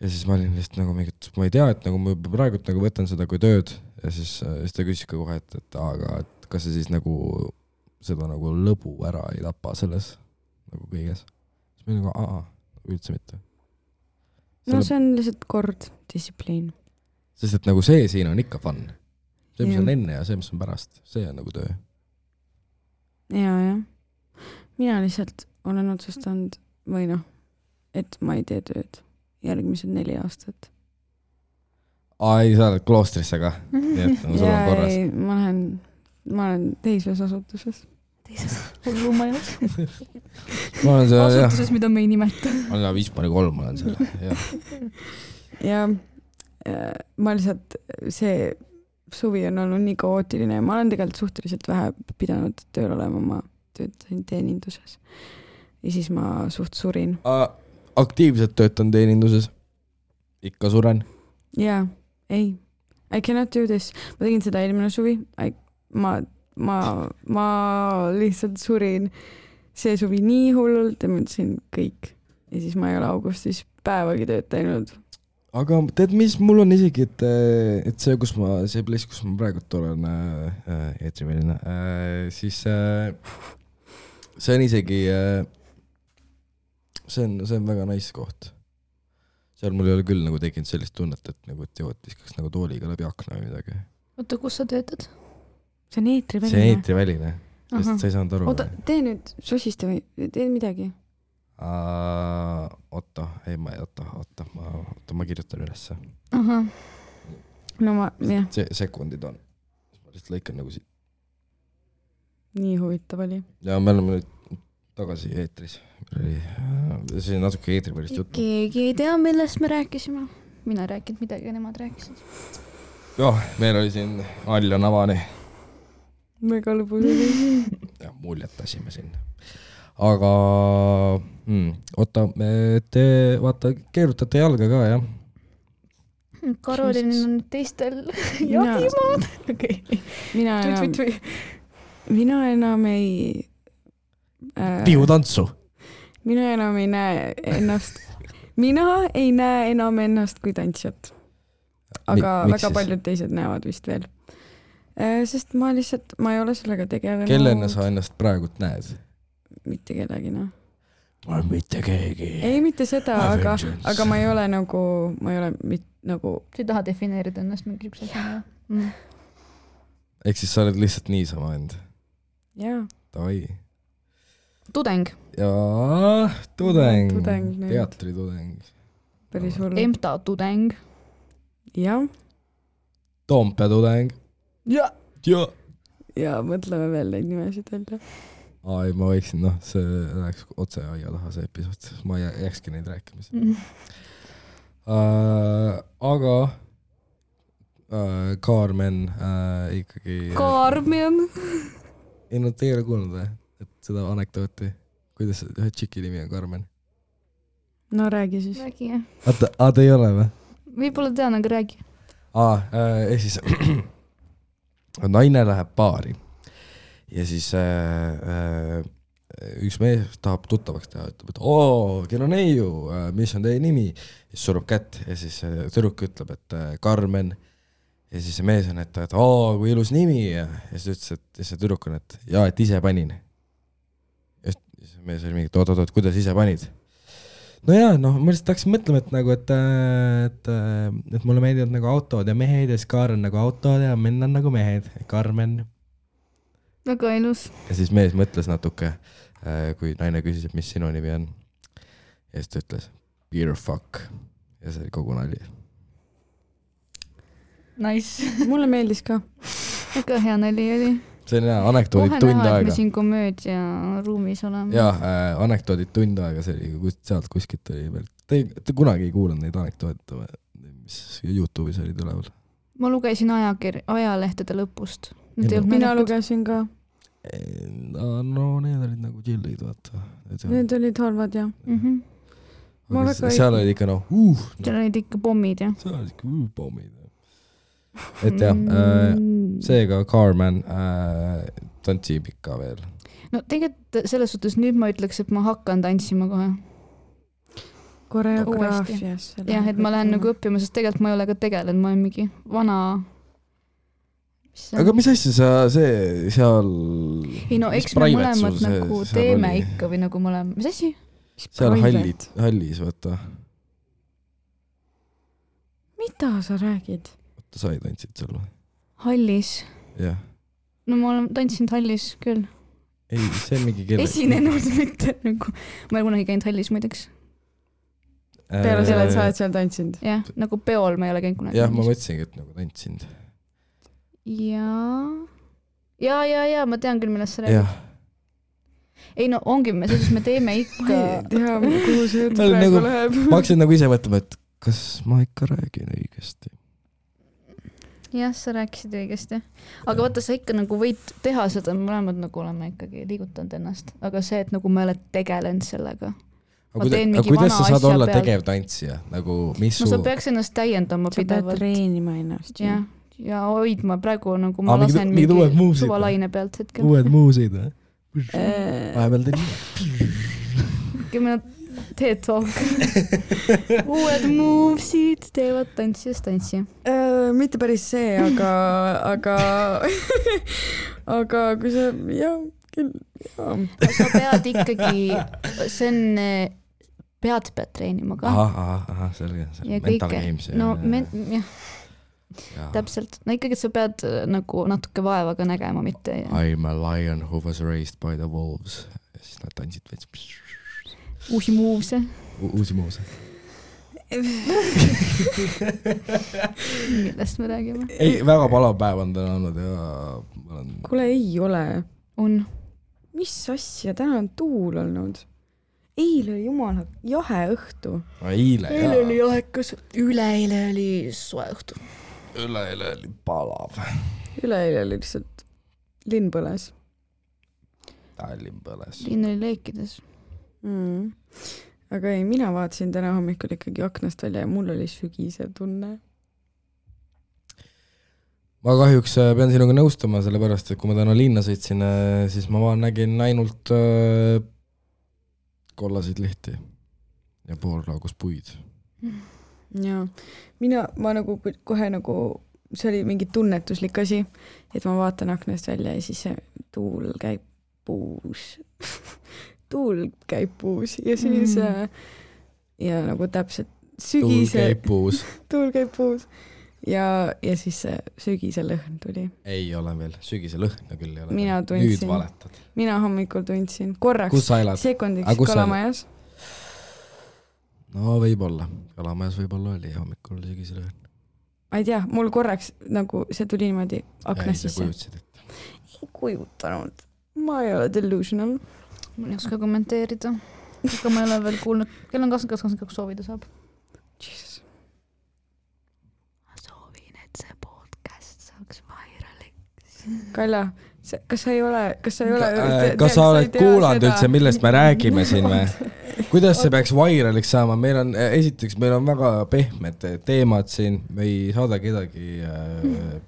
Ja siis ma olin lihtsalt nagu mingit, ma ei tea, et nagu ma praegu nagu võtan seda kui tööd ja siis ta küsis ka kohe, et kas see siis nagu seda nagu lõbu ära ei tapa selles nagu kõiges. Siis ma olin nagu, üldse mitte. No see on lihtsalt kord, distsipliin. Sest et nagu see siin on ikka fun. See, mis on enne ja see, mis on pärast, see on nagu töö. Ja. Mina lihtsalt olen otsustanud või et ma ei tee tööd. Järgmised 4 aastat. Ei, sa oled kloostrisse ka. Nii et sul on korras. Ei, ma olen teises asutuses. Hullumajas. Asutuses, mida me ei nimeta. Ma olen 5-3, ma olen seal. Ja ma lihtsalt, see suvi on olnud nii kaootiline ja ma olen tegelikult suhteliselt vähe pidanud tööl olema, ma töötasin teeninduses. Ja siis ma suht surin. Aktiivselt töötan teeninduses. Ikka suren. Jaa, ei. I cannot do this. Ma tegin seda eelmine suvi. Ma lihtsalt surin see suvi nii hullult ja mõtlesin kõik. Ja siis ma ei ole augustis päevagi tööd teinud. Aga tead, mis mul on isegi, et see place, kus ma praegu olen eetriväline, siis see on isegi... See on väga nice koht. Seal mul ei ole küll nagu tekinud sellist tunnet, et nagu viskaks nagu tooliga läbi akna või midagi. Oota, kus sa töötad? See on eetriväline. See on eetriväline. Sest sa ei saanud aru. Oota, tee nüüd sosiste või tee midagi. Oota, ma kirjutan ülesse. No jah. Sekundid on. Ma lihtsalt lõikan nagu siit. Nii huvitav oli. Ja me oleme nüüd tagasi eetris. See on natuke eetrivälist juttu. Keegi ei tea, millest me rääkisime. Mina rääkinud midagi ja nemad rääkisid. Jah, meil oli siin Alja Navani. Väga lõbus oli. Ja muljetasime siin. Aga oota, te vaata, keerutate jalga ka, jah? Karolin on teistel jahimaad. Mina mina enam ei pihutantsu. mina enam ei näe enam ennast kui tantsijat. Aga Miks väga siis? paljud teised näevad vist veel. Sest ma ei ole sellega tegelenud. Kellena sa ennast praegult näed? Mitte kellegi, noh. Mitte keegi. Ei, mitte seda, aga ma ei ole nagu, sa ei taha defineerida ennast mingi üks asja. Ehk siis sa oled lihtsalt niisama end. Jaa. Davai. Tudeng. Jaa, tudeng. Tudeng. Teatritudeng. Päris hull. EMTA tudeng. Jah. Toompea tudeng. Ja. Ja mõtleme veel neid nimesid öelda. Ai, ma võiksin, see läheks otse aia taha see episood. Ma ei jääkski neid rääkimise. Aga Carmen ikkagi... Carmen? Ei, te ei ole kuulnud või? Et seda anekdooti. Kuidas ühe tšiki nimi on Carmen? No räägi siis. Räägi, jah. Te ei ole või? Võib-olla tean, aga räägi. Siis naine läheb baari ja siis üks mees tahab tuttavaks teha, ütleb, et kell on neiu, mis on teie nimi? Siis surub kätt ja siis tüdruk ütleb, et Carmen. Ja siis see mees on, et kui ilus nimi ja siis ütles, et see tüdruk on, et et ise panin. Ja siis mees oli mingi, oot, kuidas ise panid? No jaa, ma lihtsalt hakkasin mõtlema, et nagu, et mulle meeldivad nagu autod ja mehed ja siis Kaar on nagu autod ja menn on nagu mehed. Carmen. Väga ilus. Ja siis mees mõtles natuke, kui naine küsis, et mis sinu nimi on. Ja siis ta ütles, beer fuck. Ja see oli kogu nali. Nice. Mulle meeldis ka. Väga hea nali oli. See on hea, anekdoodid tund aega. Kohe näha, et me siin komöödia ruumis oleme. Jaa, anekdoodid tund aega, see oli sealt kuskilt oli veel. Te kunagi ei kuulanud neid anekdoodid, mis YouTube'is olid üleval? Ma lugesin ajalehtede lõpust. Mina lugesin ka. No need olid nagu chillid, vaata. Need olid halvad, jah. Seal olid ikka seal olid ikka pommid, jah. Seal olid ikka pommid. Et jah, seega Carmen tantsib ikka veel. No tegelikult selles suhtes nüüd ma ütleks, et ma hakkan tantsima kohe. Koreograafias. Jah, et ma lähen nagu õppima, sest tegelikult ma ei ole ka tegelenud, ma olen mingi vana... Aga mis asja sa seal... Ei no, eks me mõlemad nagu teeme ikka või nagu mõlemad... Mis asja? Seal hallis, vaata. Mida sa räägid? Sa ei tantsid seal või? Hallis? Jah. No ma olen tantsinud hallis küll. Ei, see on mingi kelle... Esinenud mitte nagu... Ma ei kunagi käinud hallis muideks. Peale selle, et sa oled seal tantsinud? Jah, nagu peol ma ei ole käinud kunagi. Jah, ma mõtlesingi, et nagu tantsinud. Ja, ma tean küll, millest sa räägid. Ei no, ongi, me teeme ikka... Ma ei tea, kuhu see jutt praegu läheb. Ma hakkasin nagu ise mõtlema, et kas ma ikka räägin õigesti? Jah, sa rääkisid õigesti. Aga vaata, sa ikka nagu võid teha seda, me mõlemad nagu oleme ikkagi liigutanud ennast. Aga see, et nagu me oled tegelenud sellega. Aga kuidas sa saad olla tegev tantsija? Nagu, mis no sa peaks ennast täiendama pidevalt. Sa pead treenima ennast. Ja hoidma praegu nagu ma lasen mingi suvalaine pealt hetkel. Uued muusid, või? Vahepeal teed nii. TED-talk. Uued movesid teevad tantsijast tantsija. Mitte päris see, aga kui sa, sa pead ikkagi, see on, pead treenima ka. Aha, selge. Mental games. No, täpselt. No ikkagi, et sa pead nagu natuke vaeva ka nägema, mitte. I'm a lion who was raised by the wolves. Ja siis nad tantsid veits. Uusi move'se. Uusi move'se. Millest me räägime? Ei, väga palav päev on täna olnud ja... Kuule, ei ole. On. Mis asja? Täna on tuul olnud. Eile oli jumala jahe õhtu. Eile oli jahekas. Üleeile oli soe õhtu. Üleeile oli palav. Üleeile oli lihtsalt linn põles. Linn põles. Linn oli leekides. Aga ei, mina vaatasin täna hommikul ikkagi aknast välja ja mul oli sügisev tunne. ma kahjuks pean sinuga nõustama, sellepärast, et kui ma täna linna sõitsin, siis ma nägin ainult kollaseid lehti ja poolraagus puid. Jaa, ma nagu kohe nagu, see oli mingi tunnetuslik asi, et ma vaatan aknast välja ja siis see tuul käib puus. Tuul käib puus ja siis ja nagu täpselt sügise... Tuul käib puus. Ja siis see sügise lõhn tuli. Ei ole veel, sügise lõhna küll ei ole. Mina tundsin. Nüüd valetad. Mina hommikul tundsin. Korraks, sekundiks Kalamajas. No võib-olla. Kalamajas võib-olla oli hommikul sügise lõhn. Ma ei tea, mul korraks nagu see tuli niimoodi aknast sisse. Ei, sa kujutsid, et... Ei kujutanud. Ma ei ole delusional. Ma ei oska kommenteerida. Aga ma ei ole veel kuulnud. Kell on 22 soovida saab. Jesus. See podcast saaks vairaliks. Kaila, kas sa ei ole... Kas sa oled kuulanud üldse, millest me räägime siin või? Kuidas see peaks vairaliks saama? Meil on väga pehmed teemad siin, me ei saada kedagi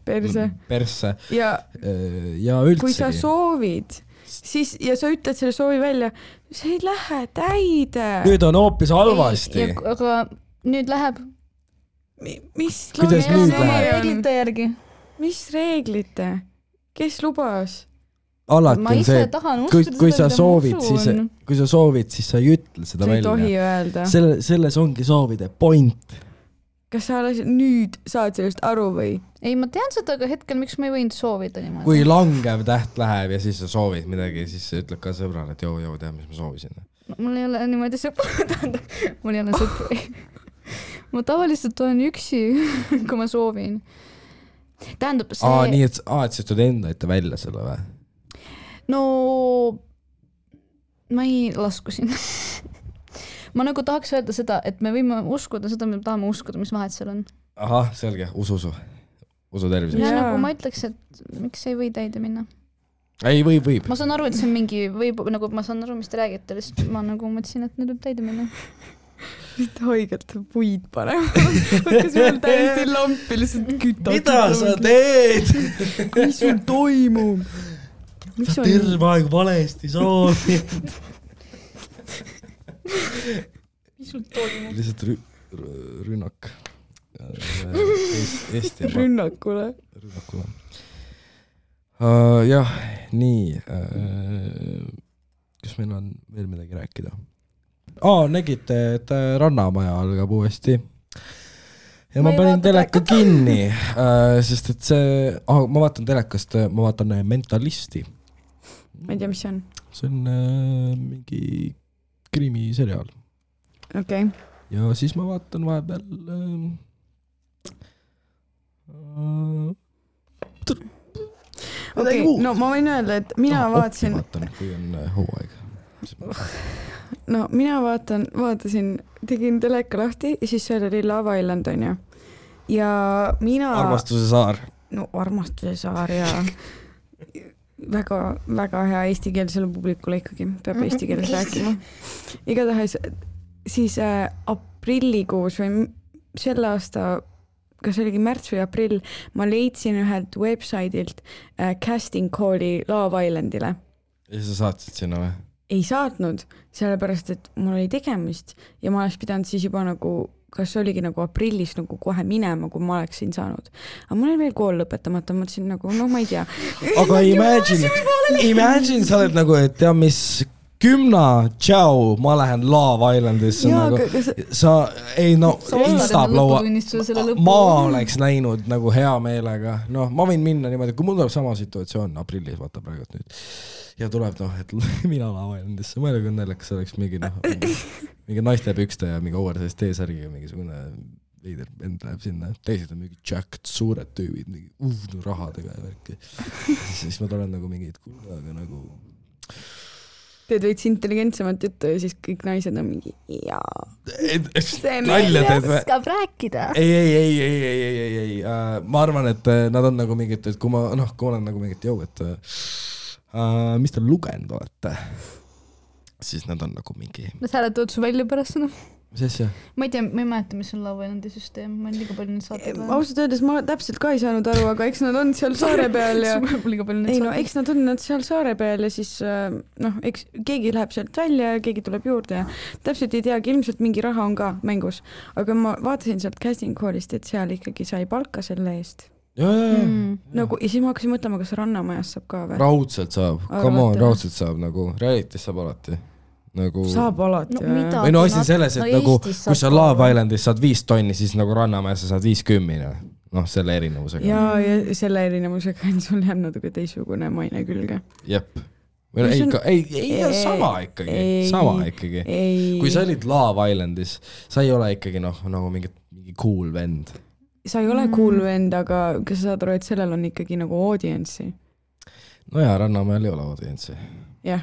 persse. Ja üldsegi. Kui sa soovid, siis, ja sa ütled selle soovi välja, see ei lähe täide. Nüüd on hoopis halvasti. Aga nüüd läheb... Kuidas nüüd läheb? Reeglite järgi. Mis reeglite? Kes lubas? Alati on see, kui sa soovid, siis sa ei ütle seda välja. Sa ei tohi öelda. Selles ongi soovide point. Kas sa nüüd saad sellest aru või? Ei, ma tean seda, aga hetkel miks ma ei võinud soovida niimoodi. Kui langev täht läheb ja siis sa soovid midagi, siis sa ütled ka sõbrale, et joo, tea, mis ma soovisin. Mul ei ole niimoodi sõpru. Mul ei ole sõpru. Ma tavaliselt olen üksi, kui ma soovin. Tähendab see... Nii, et sa ütled enda ette välja selle või? No, ma ei lasku sinna. Ma nagu tahaks öelda seda, et me võime uskuda seda, me tahame uskuda, mis vahet seal on. Ahah, selge, usu terviseks. Ja nagu ma ütleks, et miks ei või täide minna? Ei, võib. Ma saan aru, et see on mingi, nagu ma saan aru, mis te räägite, lihtsalt ma nagu mõtlesin, et nüüd võib täide minna. Haigelt puid panema. Kas meil täiesti lampi lihtsalt kütad. Mida sa teed? Mis sul toimub? Sa terve aeg valesti soovid. Mis sul toimub? Lihtsalt rünnak. Rünnakule. Jah, nii. Kas meil on veel midagi rääkida? Nägite, et Rannamaja algab uuesti. Ja ma panin teleka kinni, sest et see... ma vaatan telekast, ma vaatan Mentalisti. Ma ei tea, mis see on. See on mingi krimiseriaal. Okei. Ja siis ma vaatan vahepeal... Okei, no ma võin öelda, et mina vaatasin... Vaatan, kui on hooaeg. No mina vaatasin, tegin teleka lahti ja siis seal oli Love Island on ju. Ja mina... Armastuse saar. No Armastuse saar ja väga, väga hea eestikeelsele publikule ikkagi, peab eesti keeles rääkima. Igatahes siis aprillikuus või selle aasta, kas oligi märts või aprill, ma leidsin ühelt websaidilt casting call'i Love Islandile. Ja sa saatsid sinna või? Ei saatnud, sellepärast, et mul oli tegemist ja ma oleks pidanud siis juba nagu, kas oligi nagu aprillis nagu kohe minema, kui ma oleksin saanud. Aga mul oli veel kool lõpetamata, mõtlesin nagu, no ma ei tea. Aga imagine, sa oled nagu, et tea, mis 10, tšau, ma lähen Love Islandisse. Ma oleks läinud nagu hea meelega. No, ma võin minna niimoodi, kui mul tuleb sama situatsioon aprillis, vaata praegu nüüd. Ja tuleb, et mina Love Islandisse. Ma ei ole naljakas, oleks mingi naiste pükste ja mingi oversize T-särgiga mingisugune veider vend läheb sinna. Teised on mingi jacked, suured tüübid, mingi rahadega ja värki. Siis ma tulen nagu mingid kuulaga nagu... Teed veits intelligentsemat juttu ja siis kõik naised on mingi nalja teed või? Oskab rääkida. Ei. Ma arvan, et nad on nagu mingid, et kui ma olen nagu mingid jõu, et mis te lugenud olete? siis nad on nagu mingi... Nad hääletavad su välja pärast seda. Mis asja? Ma ei tea, ma ei mäleta, mis on Love Islandi süsteem. Ma olen liiga palju neid saateid vaja. Ausalt öeldes ma täpselt ka ei saanud aru, aga eks nad on seal saare peal ja... ei no, eks nad on seal saare peal ja siis eks keegi läheb sealt välja ja keegi tuleb juurde ja täpselt ei teagi, ilmselt mingi raha on ka mängus. Aga ma vaatasin sealt casting call'ist, et seal ikkagi sai palka selle eest. Nagu, ja siis ma hakkasin mõtlema, kas Rannamajas saab ka või? Raudselt saab, come on, raudselt saab nagu, realitis saab alati. Nagu... Saab alati või no asi selles, et nagu kui sa Love Islandis saad 5 tonni, siis nagu Rannamäes sa saad 50, noh selle erinevusega. Ja selle erinevusega on sul jääb natuke teisugune maine külge. Jep. Ei, sama ikkagi. Kui sa olid Love Islandis, sa ei ole ikkagi nagu mingi cool vend. Sa ei ole cool vend, aga kas sa saad aru, et sellel on ikkagi nagu audience'i? No jaa, Rannamäel ei ole audience'i. Jah,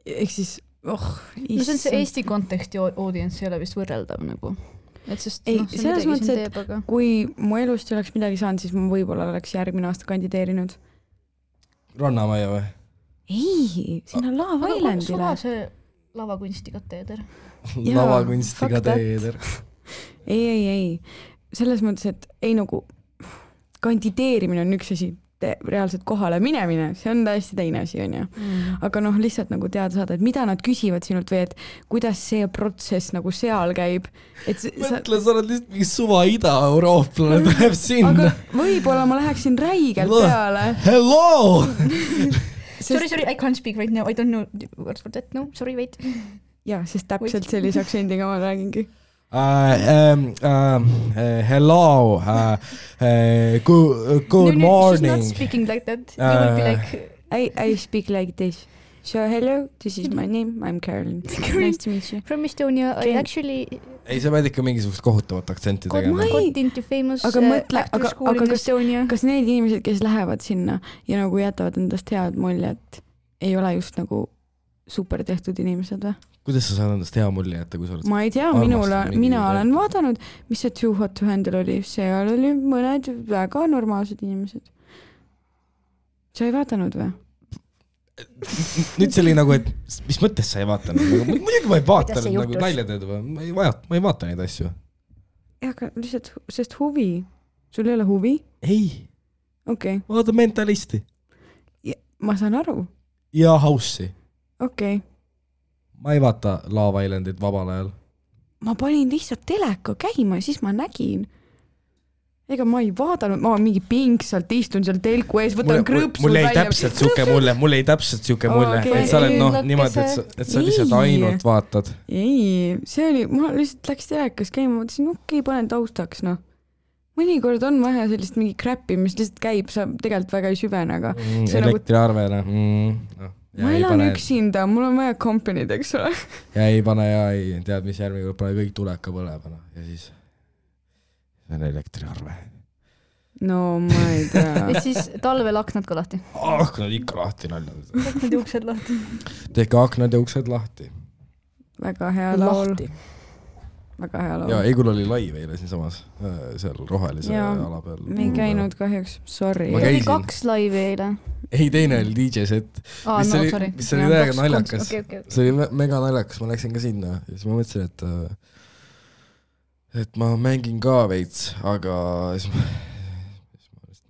ehk siis no see on see Eesti konteksti audience ei ole vist võrreldav nagu. Et sest, ei, selles mõttes, et kui mu elust ei oleks midagi saanud, siis ma võib-olla oleks järgmine aasta kandideerinud. Rannamaja või? Ei, sinna Love Islandile. Suva see lavakunstikateeder. Lavakunstikateeder. Ei. Selles mõttes, et ei nagu kandideerimine on üks asi, reaalselt kohale minemine, see on täiesti teine asi, on ju. Aga lihtsalt nagu teada saada, et mida nad küsivad sinult või et kuidas see protsess nagu seal käib. Mõtle, sa oled lihtsalt mingi suva Ida-Eurooplane tuleb sinna. Aga võib-olla ma läheksin räigelt peale. Hello! Sorry, I can't speak right now. I don't know words for that. No, sorry, wait. Ja, sest täpselt sellise aktsendiga ma räägingi. Hello, good morning. She's not speaking like that. You will be like... I speak like this. So hello, this is my name, I'm Caroline. Nice to meet you. From Estonia, I actually... Ei, sa pead ikka mingisugust kohutavat aktsenti tegema. Got into famous actor school in Estonia. Kas need inimesed, kes lähevad sinna ja nagu jätavad endast head muljet, ei ole just nagu super tehtud inimesed või? Kuidas sa saad endast hea mulje jätta, kui sa oled... Ma ei tea, mina olen vaadanud, mis see Too Hot to Handle oli. Seal oli mõned väga normaalsed inimesed. Sa ei vaatanud või? Nüüd see oli nagu, et mis mõttes sa ei vaatanud? Muidugi ma ei vaatanud nagu naljateed või? Ma ei vaata neid asju. Ja, aga lihtsalt, sest huvi. Sul ei ole huvi? Ei. Okei. Vaata Mentalisti. Ma saan aru. Ja House'i. Okei. Ma ei vaata Love Islandit vabal ajal. Ma panin lihtsalt teleka käima ja siis ma nägin. Ega ma ei vaadanud, ma mingi pingsalt istun seal telku ees, võtan krõpsud välja. Mul ei täpselt siuke mulje, et sa oled niimoodi, et sa lihtsalt ainult vaatad. Ei, see oli, ma lihtsalt läks telekas käima, mõtlesin, okei, panen taustaks, Mõnikord on vaja sellist mingi crappi, mis lihtsalt käib, sa tegelikult väga ei süvene, aga... Elektriarvele. Ma elan üksinda, mul on vaja company'd, eks ole. Ja ei pane ja ei tead, mis järgmine pane kõik tuleka põlebana ja siis see on elektriarve. No ma ei tea. Ja siis talvel aknad ka lahti. Aknad ikka lahti naljad. Aknad ja uksed lahti. Tehke aknad ja uksed lahti. Väga hea laul. Väga hea laul. Ja Eigul oli laiv eile siin samas, seal rohelise ala peal. Me ei käinud kahjuks, sorry. Oli 2 laivi eile. Ei, teine oli DJ set. Mis oli täiega naljakas. See oli mega naljakas, ma läksin ka sinna ja siis ma mõtlesin, et ma mängin ka veits, aga siis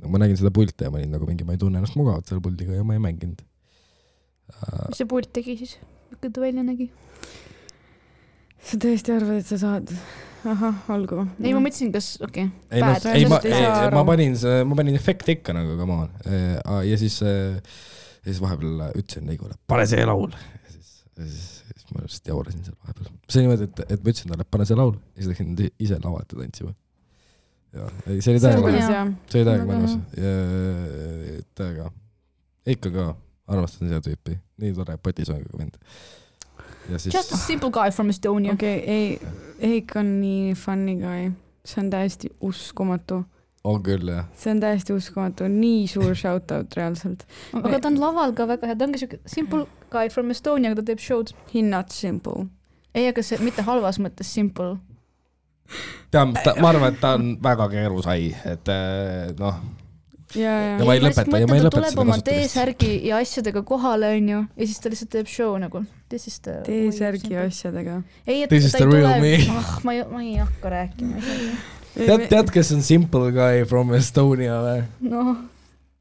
ma nägin seda pulti ja ma olin nagu mingi, ma ei tunne ennast mugavalt selle puldiga ja ma ei mänginud. Mis see pult tegi siis? Kui ta välja nägi? Sa tõesti arvad, et sa saad? Aha, olgu. Ei, ma mõtlesin, kas, okei. Ma panin efekti ikka nagu, come on. Ja siis vahepeal ütlesin Neigule, pane see laul. Ja siis ma just jaurasin seal vahepeal. See niimoodi, et ma ütlesin talle, pane see laul. Ja siis läksin ise lava ette tantsima. See oli täiega mõnus. Täiega. Ikka ka armastan seda tüüpi. Nii tore potisongiga vend. Just a simple guy from Estonia. Okei, Eik on nii funny guy. See on täiesti uskumatu. On küll, jah. See on täiesti uskumatu. Nii suur shoutout reaalselt. Aga ta on laval ka väga hea. Ta ongi siuke simple guy from Estonia, aga ta teeb showd. He not simple. Ei, aga see mitte halvas mõttes simple. Ma arvan, et ta on väga keerusai. Et ja ma ei lõpeta tuleb seda oma kasutamist. T-särgi ja asjadega kohale, onju, ja siis ta lihtsalt teeb show nagu. T-särgi ja asjadega. Ei, et This is ta the ei real tule, me. ma ei hakka rääkima. Tead, kes on Simple Guy from Estonia või? Noh.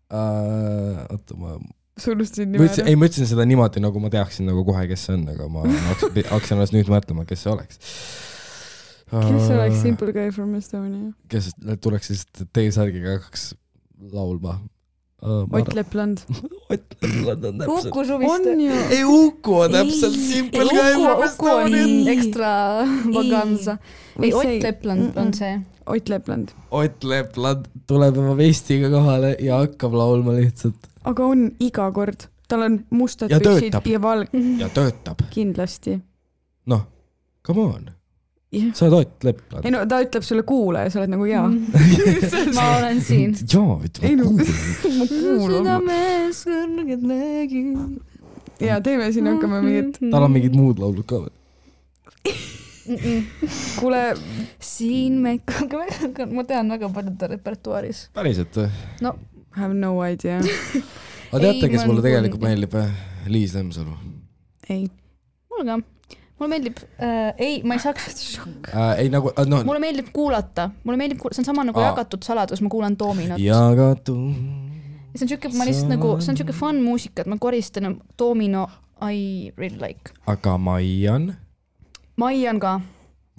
Oota, ma ütlesin seda niimoodi, nagu ma teaksin nagu kohe, kes see on, aga ma hakkasin alles nüüd mõtlema, kes see oleks. Kes oleks Simple Guy from Estonia? Kes tuleks siis T-särgiga hakkaks laulma? Ott Lepland. Ott Lepland on täpselt. Uku suviste. Ei, Uku on täpselt Simple Guy from Estonia. Uku on ekstra vaganza. Ei, Ott Lepland on see. Ott Lepland. Ott Lepland tuleb oma vestiga kohale ja hakkab laulma lihtsalt. Aga on iga kord. Tal on mustad ja püksid töötab. ja valg. Ja töötab. Kindlasti. Noh, come on. Yeah. Sa oled Ott Lepland. Ei no, ta ütleb sulle kuule ja sa oled nagu jaa. Ma olen siin. Jaa, ütleb ma kuulan. Südames kõrged lägid. Ja teeme siin hakkame mingid. Tal on mingid muud laulud ka või? Kuule, siin me ma tean väga paljude repertuaaris. Päriselt või? No, have no idea. Aga teate, kes mulle tegelikult meeldib? Liis Lemsalu. Ei. Mulle ka. Mulle meeldib, ei, ma ei saaks ei nagu, no. Mulle meeldib kuulata. See on sama nagu jagatud saladus, ma kuulan Dominot. Jagatud. See on siuke, ma lihtsalt nagu, see on siuke fun muusika, et ma koristan Domino I really like. Aga Maian? Maian ka.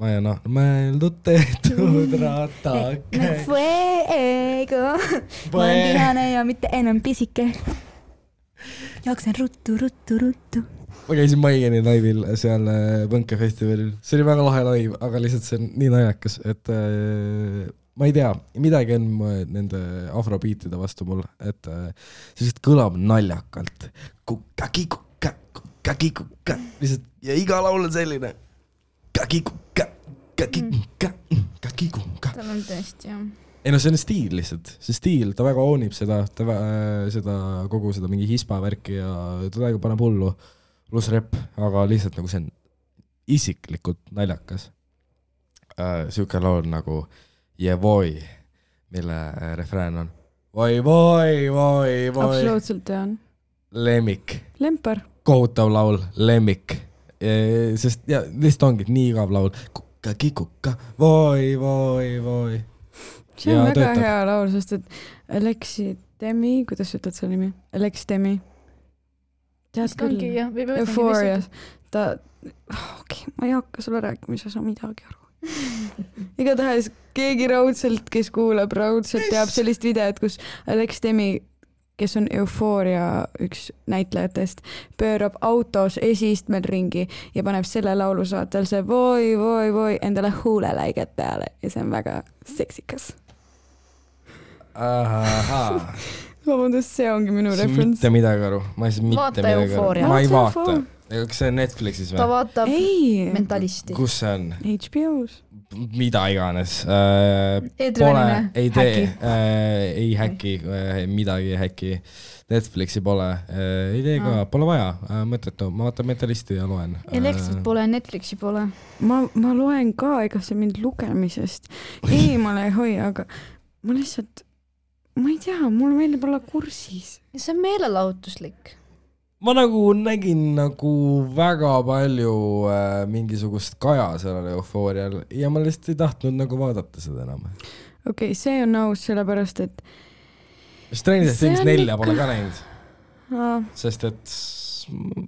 Maian, mõeldud tehtud ratake. Fuego. Ma olen tihane ja mitte enam pisike. Jooksen ruttu. Ma käisin Maiani laivil seal Põnkefestivalil. See oli väga lahe laiv, aga lihtsalt see on nii naljakas, et ma ei tea, midagi on nende afrobiitide vastu mul, et see lihtsalt kõlab naljakalt. Kukka, lihtsalt, ja iga laul on selline. Tal on tõesti, jah. Ei no see on stiil lihtsalt, see stiil, ta väga oonib seda kogu seda mingi hispa värki ja ta väga paneb hullu. Plus rep, aga lihtsalt nagu see on isiklikult naljakas. Siuke laul nagu Jevoi, mille refrään on Voi. Absoluutselt tean. Lemmik. Lempar. Kohutav laul, lemmik. Sest ja, lihtsalt ongi nii igav laul. Kukka, voi. See on väga hea laul, sest et Alexi Demi, kuidas ütled selle nimi? Alex Demi. Tead küll, Euphorias. Ma ei hakka sulle rääkima, sa saa midagi aru. Igatahes keegi raudselt, kes kuulab raudselt, teab sellist videot, kus Alex Demi, kes on Euphoria üks näitlejatest, pöörab autos esistmel ringi ja paneb selle laulu saatel see voi endale huuleläiget peale ja see on väga seksikas. Vabandust, see ongi minu reference. Mitte midagi aru. Ma ei saa mitte midagi aru. Ma ei vaata. Kas see on Netflixis või? Ta vaatab Mentalisti. Kus see on? HBO-s. Mida iganes. Ei tee. Ei häkki. Midagi ei häkki. Netflixi pole. Ei tee ka. Pole vaja. Mõttetu. Ma vaatan Mentalisti ja loen. Elektrit pole, Netflixi pole. Ma loen ka, ega see mind lugemisest eemale ei hoia, aga ma lihtsalt ma ei tea, mulle meeldib olla kursis. See on meelelahutuslik. Ma nagu nägin nagu väga palju mingisugust kaja sellele Eufoorial ja ma lihtsalt ei tahtnud nagu vaadata seda enam. Okei, see on aus, sellepärast, et Stranger Things 4 pole ka näinud. Sest et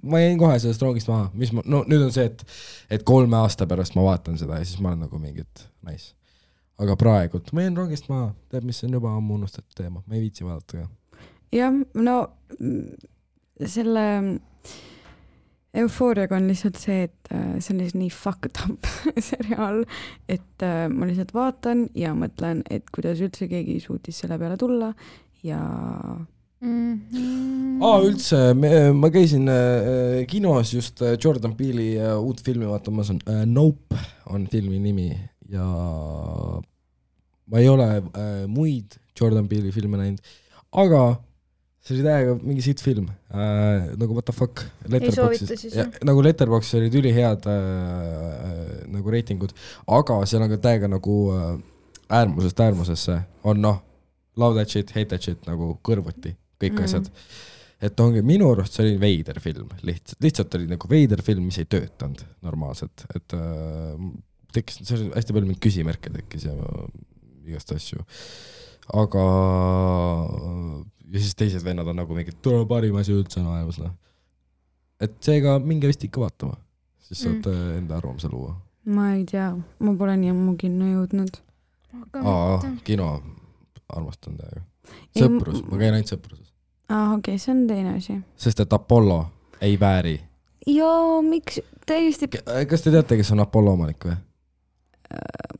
ma jäin kohe sellest roogist maha. No nüüd on see, et 3 aasta pärast ma vaatan seda ja siis ma olen nagu mingit nice. Aga praegult ma jäin roogist maha. Tead, mis on juba ammu unustatud teema. Ma ei viitsi vaadata ka. Jah, no selle Eufooriaga on lihtsalt see, et see on nii fucked up seriaal, et ma lihtsalt vaatan ja mõtlen, et kuidas üldse keegi suutis selle peale tulla ja üldse, ma käisin kinos just Jordan Peele'i uut filmi vaatamas on Nope on filmi nimi ja ma ei ole muid Jordan Peele'i filme näinud, aga see oli täiega mingi siit film, nagu what the fuck, nagu Letterboxis olid ülihead nagu reitingud, aga seal on ka täiega nagu äärmusest äärmusesse on love that shit, hate that shit nagu kõrvuti, kõik asjad. Et ongi minu arust see oli veider film, lihtsalt oli nagu veider film, mis ei töötanud normaalselt, et tekkis, see oli hästi palju mind küsimärke tekkis ja igast asju, aga ja siis teised vennad on nagu mingid tule parim asi üldse maailmas, noh. Et seega minge vist ikka vaatama, siis saate enda arvamuse luua. Ma ei tea, ma pole nii ammu kinno jõudnud. Kino armastan täiega. Sõprus, ma käin ainult sõpruses. Okei, see on teine asi. Sest et Apollo ei vääri. Joo, miks täiesti... Kas te teate, kes on Apollo omanik või?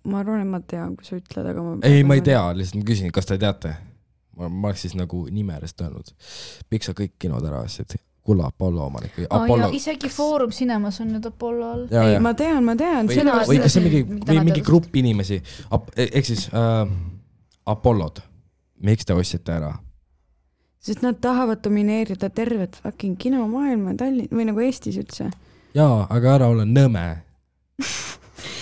Ma arvan, et ma tean, kui sa ütled, aga ma... Ei, ma ei tea, lihtsalt ma küsin, kas te teate? Ma oleks siis nagu nimerest öelnud. Miks sa kõik kinod ära asjad? Kulla Apollo omanik või Apollo... Ja isegi Foorum Cinemas on nüüd Apollo all. Ei, ma tean. Või kas see mingi grupp inimesi, ehk siis Apollod, miks te ostsite ära? Sest nad tahavad domineerida tervet fucking kinomaailma või nagu Eestis üldse. Jaa, aga ära ole nõme.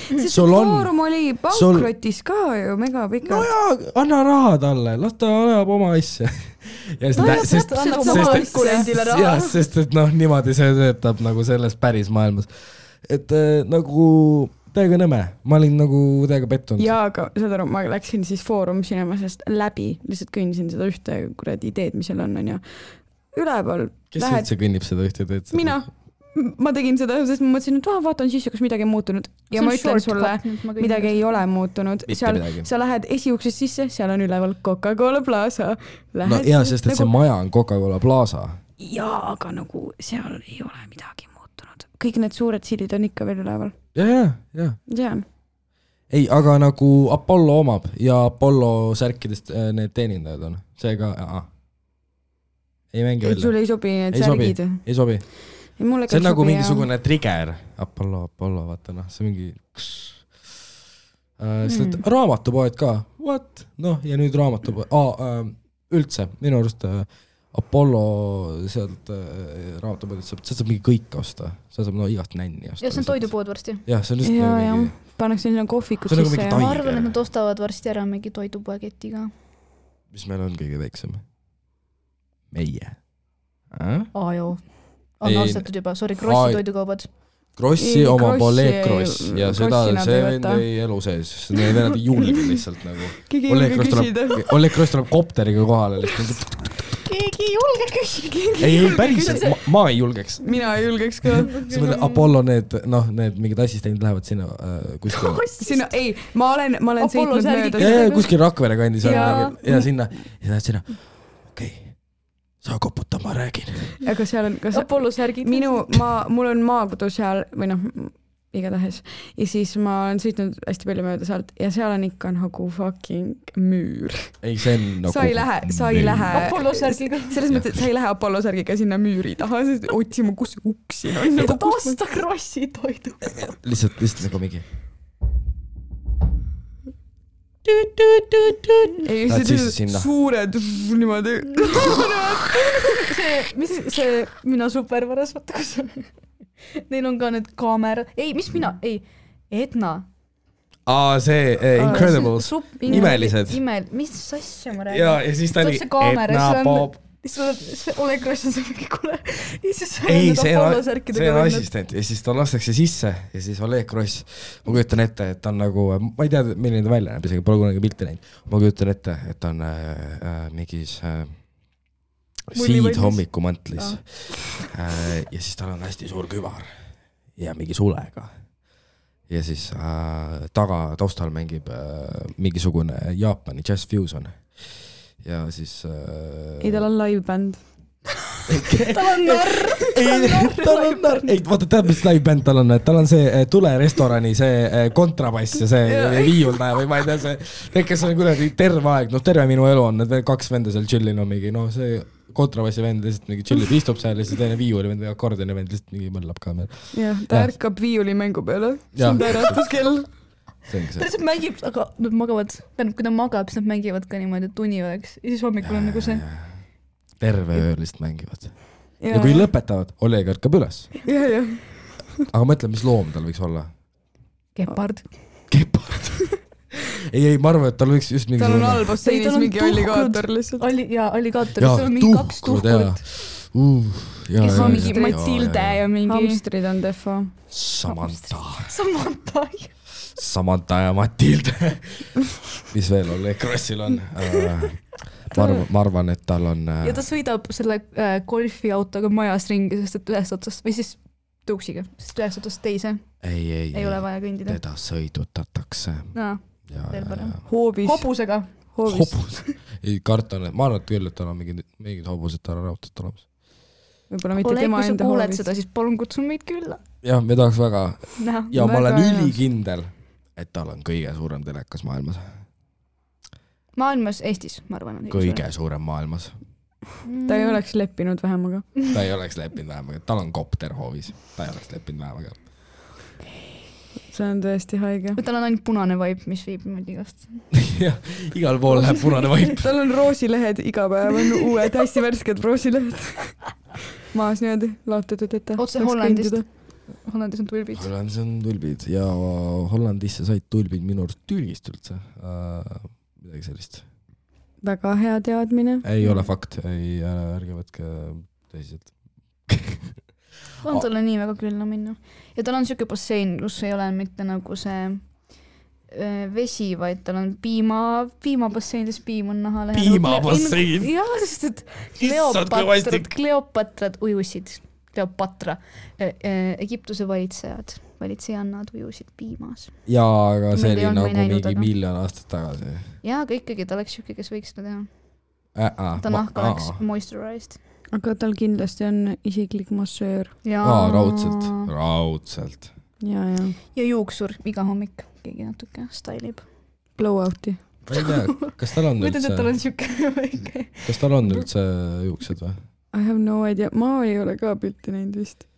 Sest Foorum oli pankrotis ka ju mega pika. No jaa, anna raha talle, las ta ajab oma asja. Sest et noh, niimoodi see töötab nagu selles päris maailmas. Et nagu täiega nõme, ma olin nagu täiega pettunud. Jaa, aga saad aru, ma läksin siis Foorum Cinemasest läbi, lihtsalt kõnnisin seda ühte kuradi ideed, mis seal on ja üleval. Kes üldse kõnnib seda ühte ideed? Mina. Ma tegin seda, sest ma mõtlesin, et vaatan sisse, kas midagi on muutunud. Ja ma ütlen sulle, midagi ei ole muutunud. Sa lähed esiuksest sisse, seal on üleval Coca-Cola Plaza. No jaa, sest et see maja on Coca-Cola Plaza. Jaa, aga nagu seal ei ole midagi muutunud. Kõik need suured sildid on ikka veel üleval. Jaa. Tean. Ei, aga nagu Apollo omab ja Apollo särkidest need teenindajad on. Seega, ei mängi välja. Sul ei sobi need särgid? Ei sobi. See on nagu mingisugune trigger. Apollo, vaata noh, see mingi... Raamatupoed ka. What? Noh, ja nüüd raamatupoed. Üldse, minu arust Apollo sealt raamatupoed, sa saab mingi kõik osta. Sa saab igast nänni osta. Ja see on toidupood varsti. Jah, see on lihtsalt mingi... Pannakse sinna kohvikud sisse. Ma arvan, et nad ostavad varsti ära mingi toidupoeketiga. Mis meil on kõige väiksem? Meie. Joo. On ostetud juba, Krossi toidukaubad. Krossi oma Oleg Kross ja seda see vend ei elu sees, sest need vennad ei julge lihtsalt nagu. Oleg Kross tuleb kopteriga kohale lihtsalt. Keegi ei julge küsida. Ei, päriselt, ma ei julgeks. Mina ei julgeks ka. See mõtle, Apollo need mingid assistendid lähevad sinna kuskil. Sinna, ei, ma olen sõitnud mööda. Ja kuskil Rakvere kandis ja sinna. Ja lähed sinna, okei. Sa koputa, ma räägin. Aga seal on... Apollo särgid. Mul on maakodu seal, või noh, igatahes. Ja siis ma olen sõitnud hästi palju mööda sealt ja seal on ikka nagu fucking müür. Ei, see on nagu... Sa ei lähe... Apollo särgiga. Selles mõttes, et sa ei lähe Apollo särgiga sinna müüri taha, sest otsima, kus uksin on. Et osta Krossi toidu. Lihtsalt nagu mingi... Ei, see suured niimoodi. See mina supervaras, vaata kus on. Neil on ka need kaamera. Ei, mis mina? Ei, Edna. See Incredibles. Imelised. Mis asja ma räägin? Ja siis ta oli Edna Bob. Oleg Kross on see mingi kule. Ei, see on assistent ja siis ta lastakse sisse ja siis Oleg Kross, ma kujutan ette, et ta on nagu, ma ei tea, milline ta välja näeb, isegi pole kunagi pilti näinud, ma kujutan ette, et ta on mingis siidhommikumantlis ja siis tal on hästi suur kübar ja mingi sulega ja siis taustal mängib mingisugune Jaapani Jazz Fusion ja siis... Ei, tal on live-bänd. Tal on narr. Ei, vaata, tead, mis live-bänd tal on? Tal on see Tulerestorani see kontrabass ja see viiuldaja või ma ei tea, see kes on kuidagi terve aeg, terve minu elu on, need kaks venda seal chillin on mingi, see kontrabassi vend lihtsalt mingi chillib, istub seal ja siis teine viiuli vend või akordioni vend lihtsalt mingi mõllab ka meil. Jah, ta ärkab viiuli mängu peale. See on pärastuskell. Ta lihtsalt mängib, aga nad magavad, kui ta magab, siis nad mängivad ka niimoodi, et uni oleks ja siis hommikul on nagu see terve öö lihtsalt mängivad ja kui lõpetavad, Oleg ärkab üles aga mõtle, mis loom tal võiks olla? Gepard ei, ma arvan, et tal võiks just mingi tal on all basseinis mingi alligaator lihtsalt. Alligaator, seal on mingi 2 tuhkut. Kes on mingi Matilde ja mingi... Hamstrid on defo. Samantha ja Matilde. Mis veel Oleg Krossil on? Ma arvan, et tal on... Ja ta sõidab selle golfiautoga majas ringi, sest et ühest otsast, või siis tuuksiga, sest ühest otsast teise. Ei ole vaja kõndida. Teda sõidutatakse. Hoobis. Hobusega. Hobus. Ei, kartan, et ma arvan, et küll, et tal on mingid hobused tal on raudselt olemas. Võib-olla mitte tema enda hoovis. Kuuled seda, siis palun kutsun meid külla. Jah, me tahaks väga. Ja ma olen ülikindel, et tal on kõige suurem telekas maailmas. Maailmas, Eestis, ma arvan. Kõige suurem maailmas. Ta ei oleks leppinud vähemaga. Ta ei oleks leppinud vähemaga. Tal on kopter hoovis. Ta ei oleks leppinud vähemaga. See on tõesti haige. Tal on ainult punane vaip, mis viib niimoodi igast. Jah, igal pool läheb punane vaip. Tal on roosilehed iga päev, on uued, hästi värsked roosilehed. Maas niimoodi laotatud, et otse Hollandist. Hollandis on tulbid. Hollandis on tulbid ja Hollandisse said tulbid minu arust Türgist üldse. Midagi sellist. Väga hea teadmine. Ei ole fakt, ärge võtke tõsiselt. On talle nii väga külna minna. Ja tal on siuke bassein, kus ei ole mitte nagu see vesi, vaid tal on piimabassein, siis piim on naha lähedal. Piimabassein? Jah, sest et Kleopatrad ujusid. Kleopatra. Egiptuse valitsejannad ujusid piimas. Jaa, aga see oli nagu mingi miljon aastat tagasi. Jaa, aga ikkagi ta oleks siuke, kes võiks seda teha. Ta nahk oleks moisturized. Aga tal kindlasti on isiklik massöör. Raudselt. Ja juuksur iga hommik keegi natuke stylib. Blow-out'i. Ma ei tea, kas tal on üldse... Kas tal on üldse juuksed või? I have no idea. Ma ei ole ka pilti näinud vist.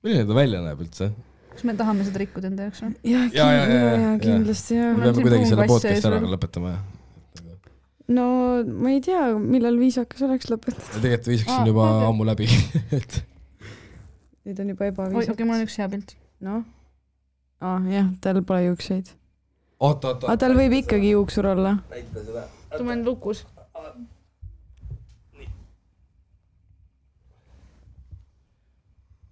Milline ta välja näeb üldse? Kas me tahame seda rikkuda enda jaoks? Ja, kindlasti. Me peame kuidagi selle podcast ära lõpetama. No, ma ei tea, millal viisakas oleks lõpetada. Tegelikult viisakas on juba ammu läbi. Nüüd on juba ebaviisakas. Okei, mul on üks hea pilt. No? Jah, tal pole juukseid. Oota. Tal võib ikkagi juuksur olla. Näita seda. Ta on lukus.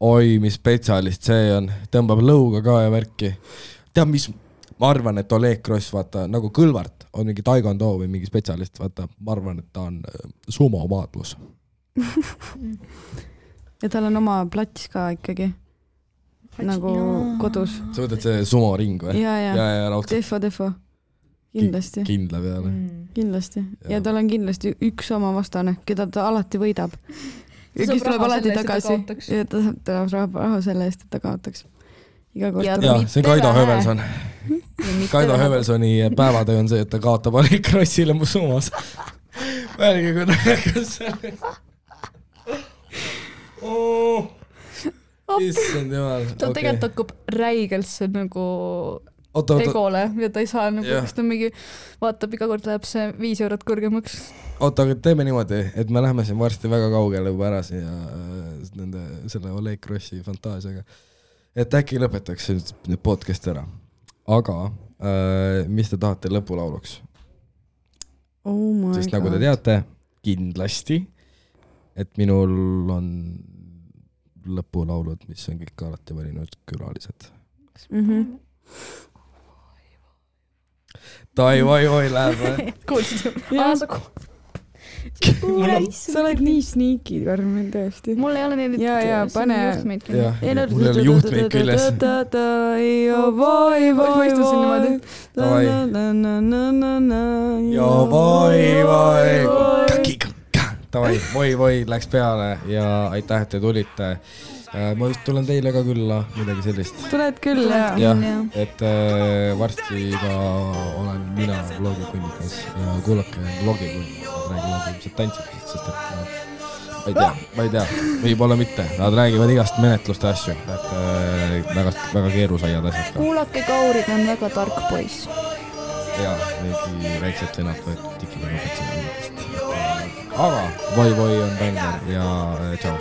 Oi, mis spetsialist see on. Tõmbab lõuga ka ja värki. Tead, mis... Ma arvan, et Oleg Kross, vaata, nagu Kõlvart on mingi taekwondo või mingi spetsialist, vaata, ma arvan, et ta on sumomaadlus. Ja tal on oma plats ka ikkagi. Nagu kodus. Sa võtad see sumoring või? Ja, defo. Kindlasti. Kindla peale. Kindlasti. Ja tal on kindlasti üks oma vastane, keda ta alati võidab. Ja kes tuleb alati tagasi. Ja ta saab raha selle eest, et ta kaotaks. Ja, see on Kaido Hövelson. Kaido Hövelsoni päevatöö on see, et ta kaotab Oleg Krossile mu summas. Välge, kui näekas selle. Issand jumal. Ta tegelikult hakkub räigelt see nagu egole ja ta ei saa nagu, kas ta mingi vaatab, iga kord läheb see 5 eurot kõrgemaks. Oota, aga teeme niimoodi, et me läheme siin varsti väga kaugele juba ära ja selle Oleg Krossi fantaasiaga. Et äkki lõpetaks nüüd podcast ära. Aga mis te tahate lõpulauluks? Oh my Sest nagu te teate, kindlasti, et minul on lõpulaulud, mis on kõik alati valinud külalised. Tai-vai-vai läheb või? Kuulsid? Sa oled nii sneaky, Karmen, tõesti. Mul ei ole neid pane juhtmeid küll. Mul ei ole juhtmeid küljes. Vai-vai läks peale ja aitäh, et te tulite. Ma just tulen teile ka külla, midagi sellist. Tuled küll, jah. Et varsti ka olen mina vlogikunnikas ja kuulake vlogikunnikas. Nad räägivad ilmselt tantsitest, sest et ma ei tea, võib-olla mitte. Nad räägivad igast menetluste asju, et väga keerusaiad asjad ka. Kuulake Kaurid on väga tark poiss. Jaa, mingi väiksed sõnad võetud tikiga õpetsin. Aga Voi-Voi on bänger ja tšau.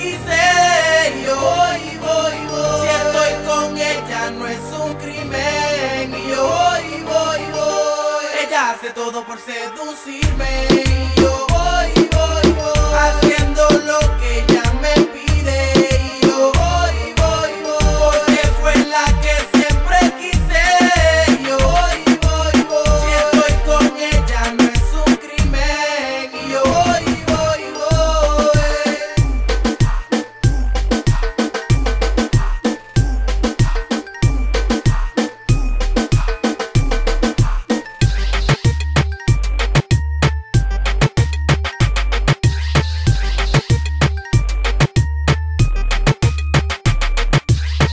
quise. Y yo voy. Si estoy con ella no es un crimen. Y yo voy. Ella hace todo por seducirme.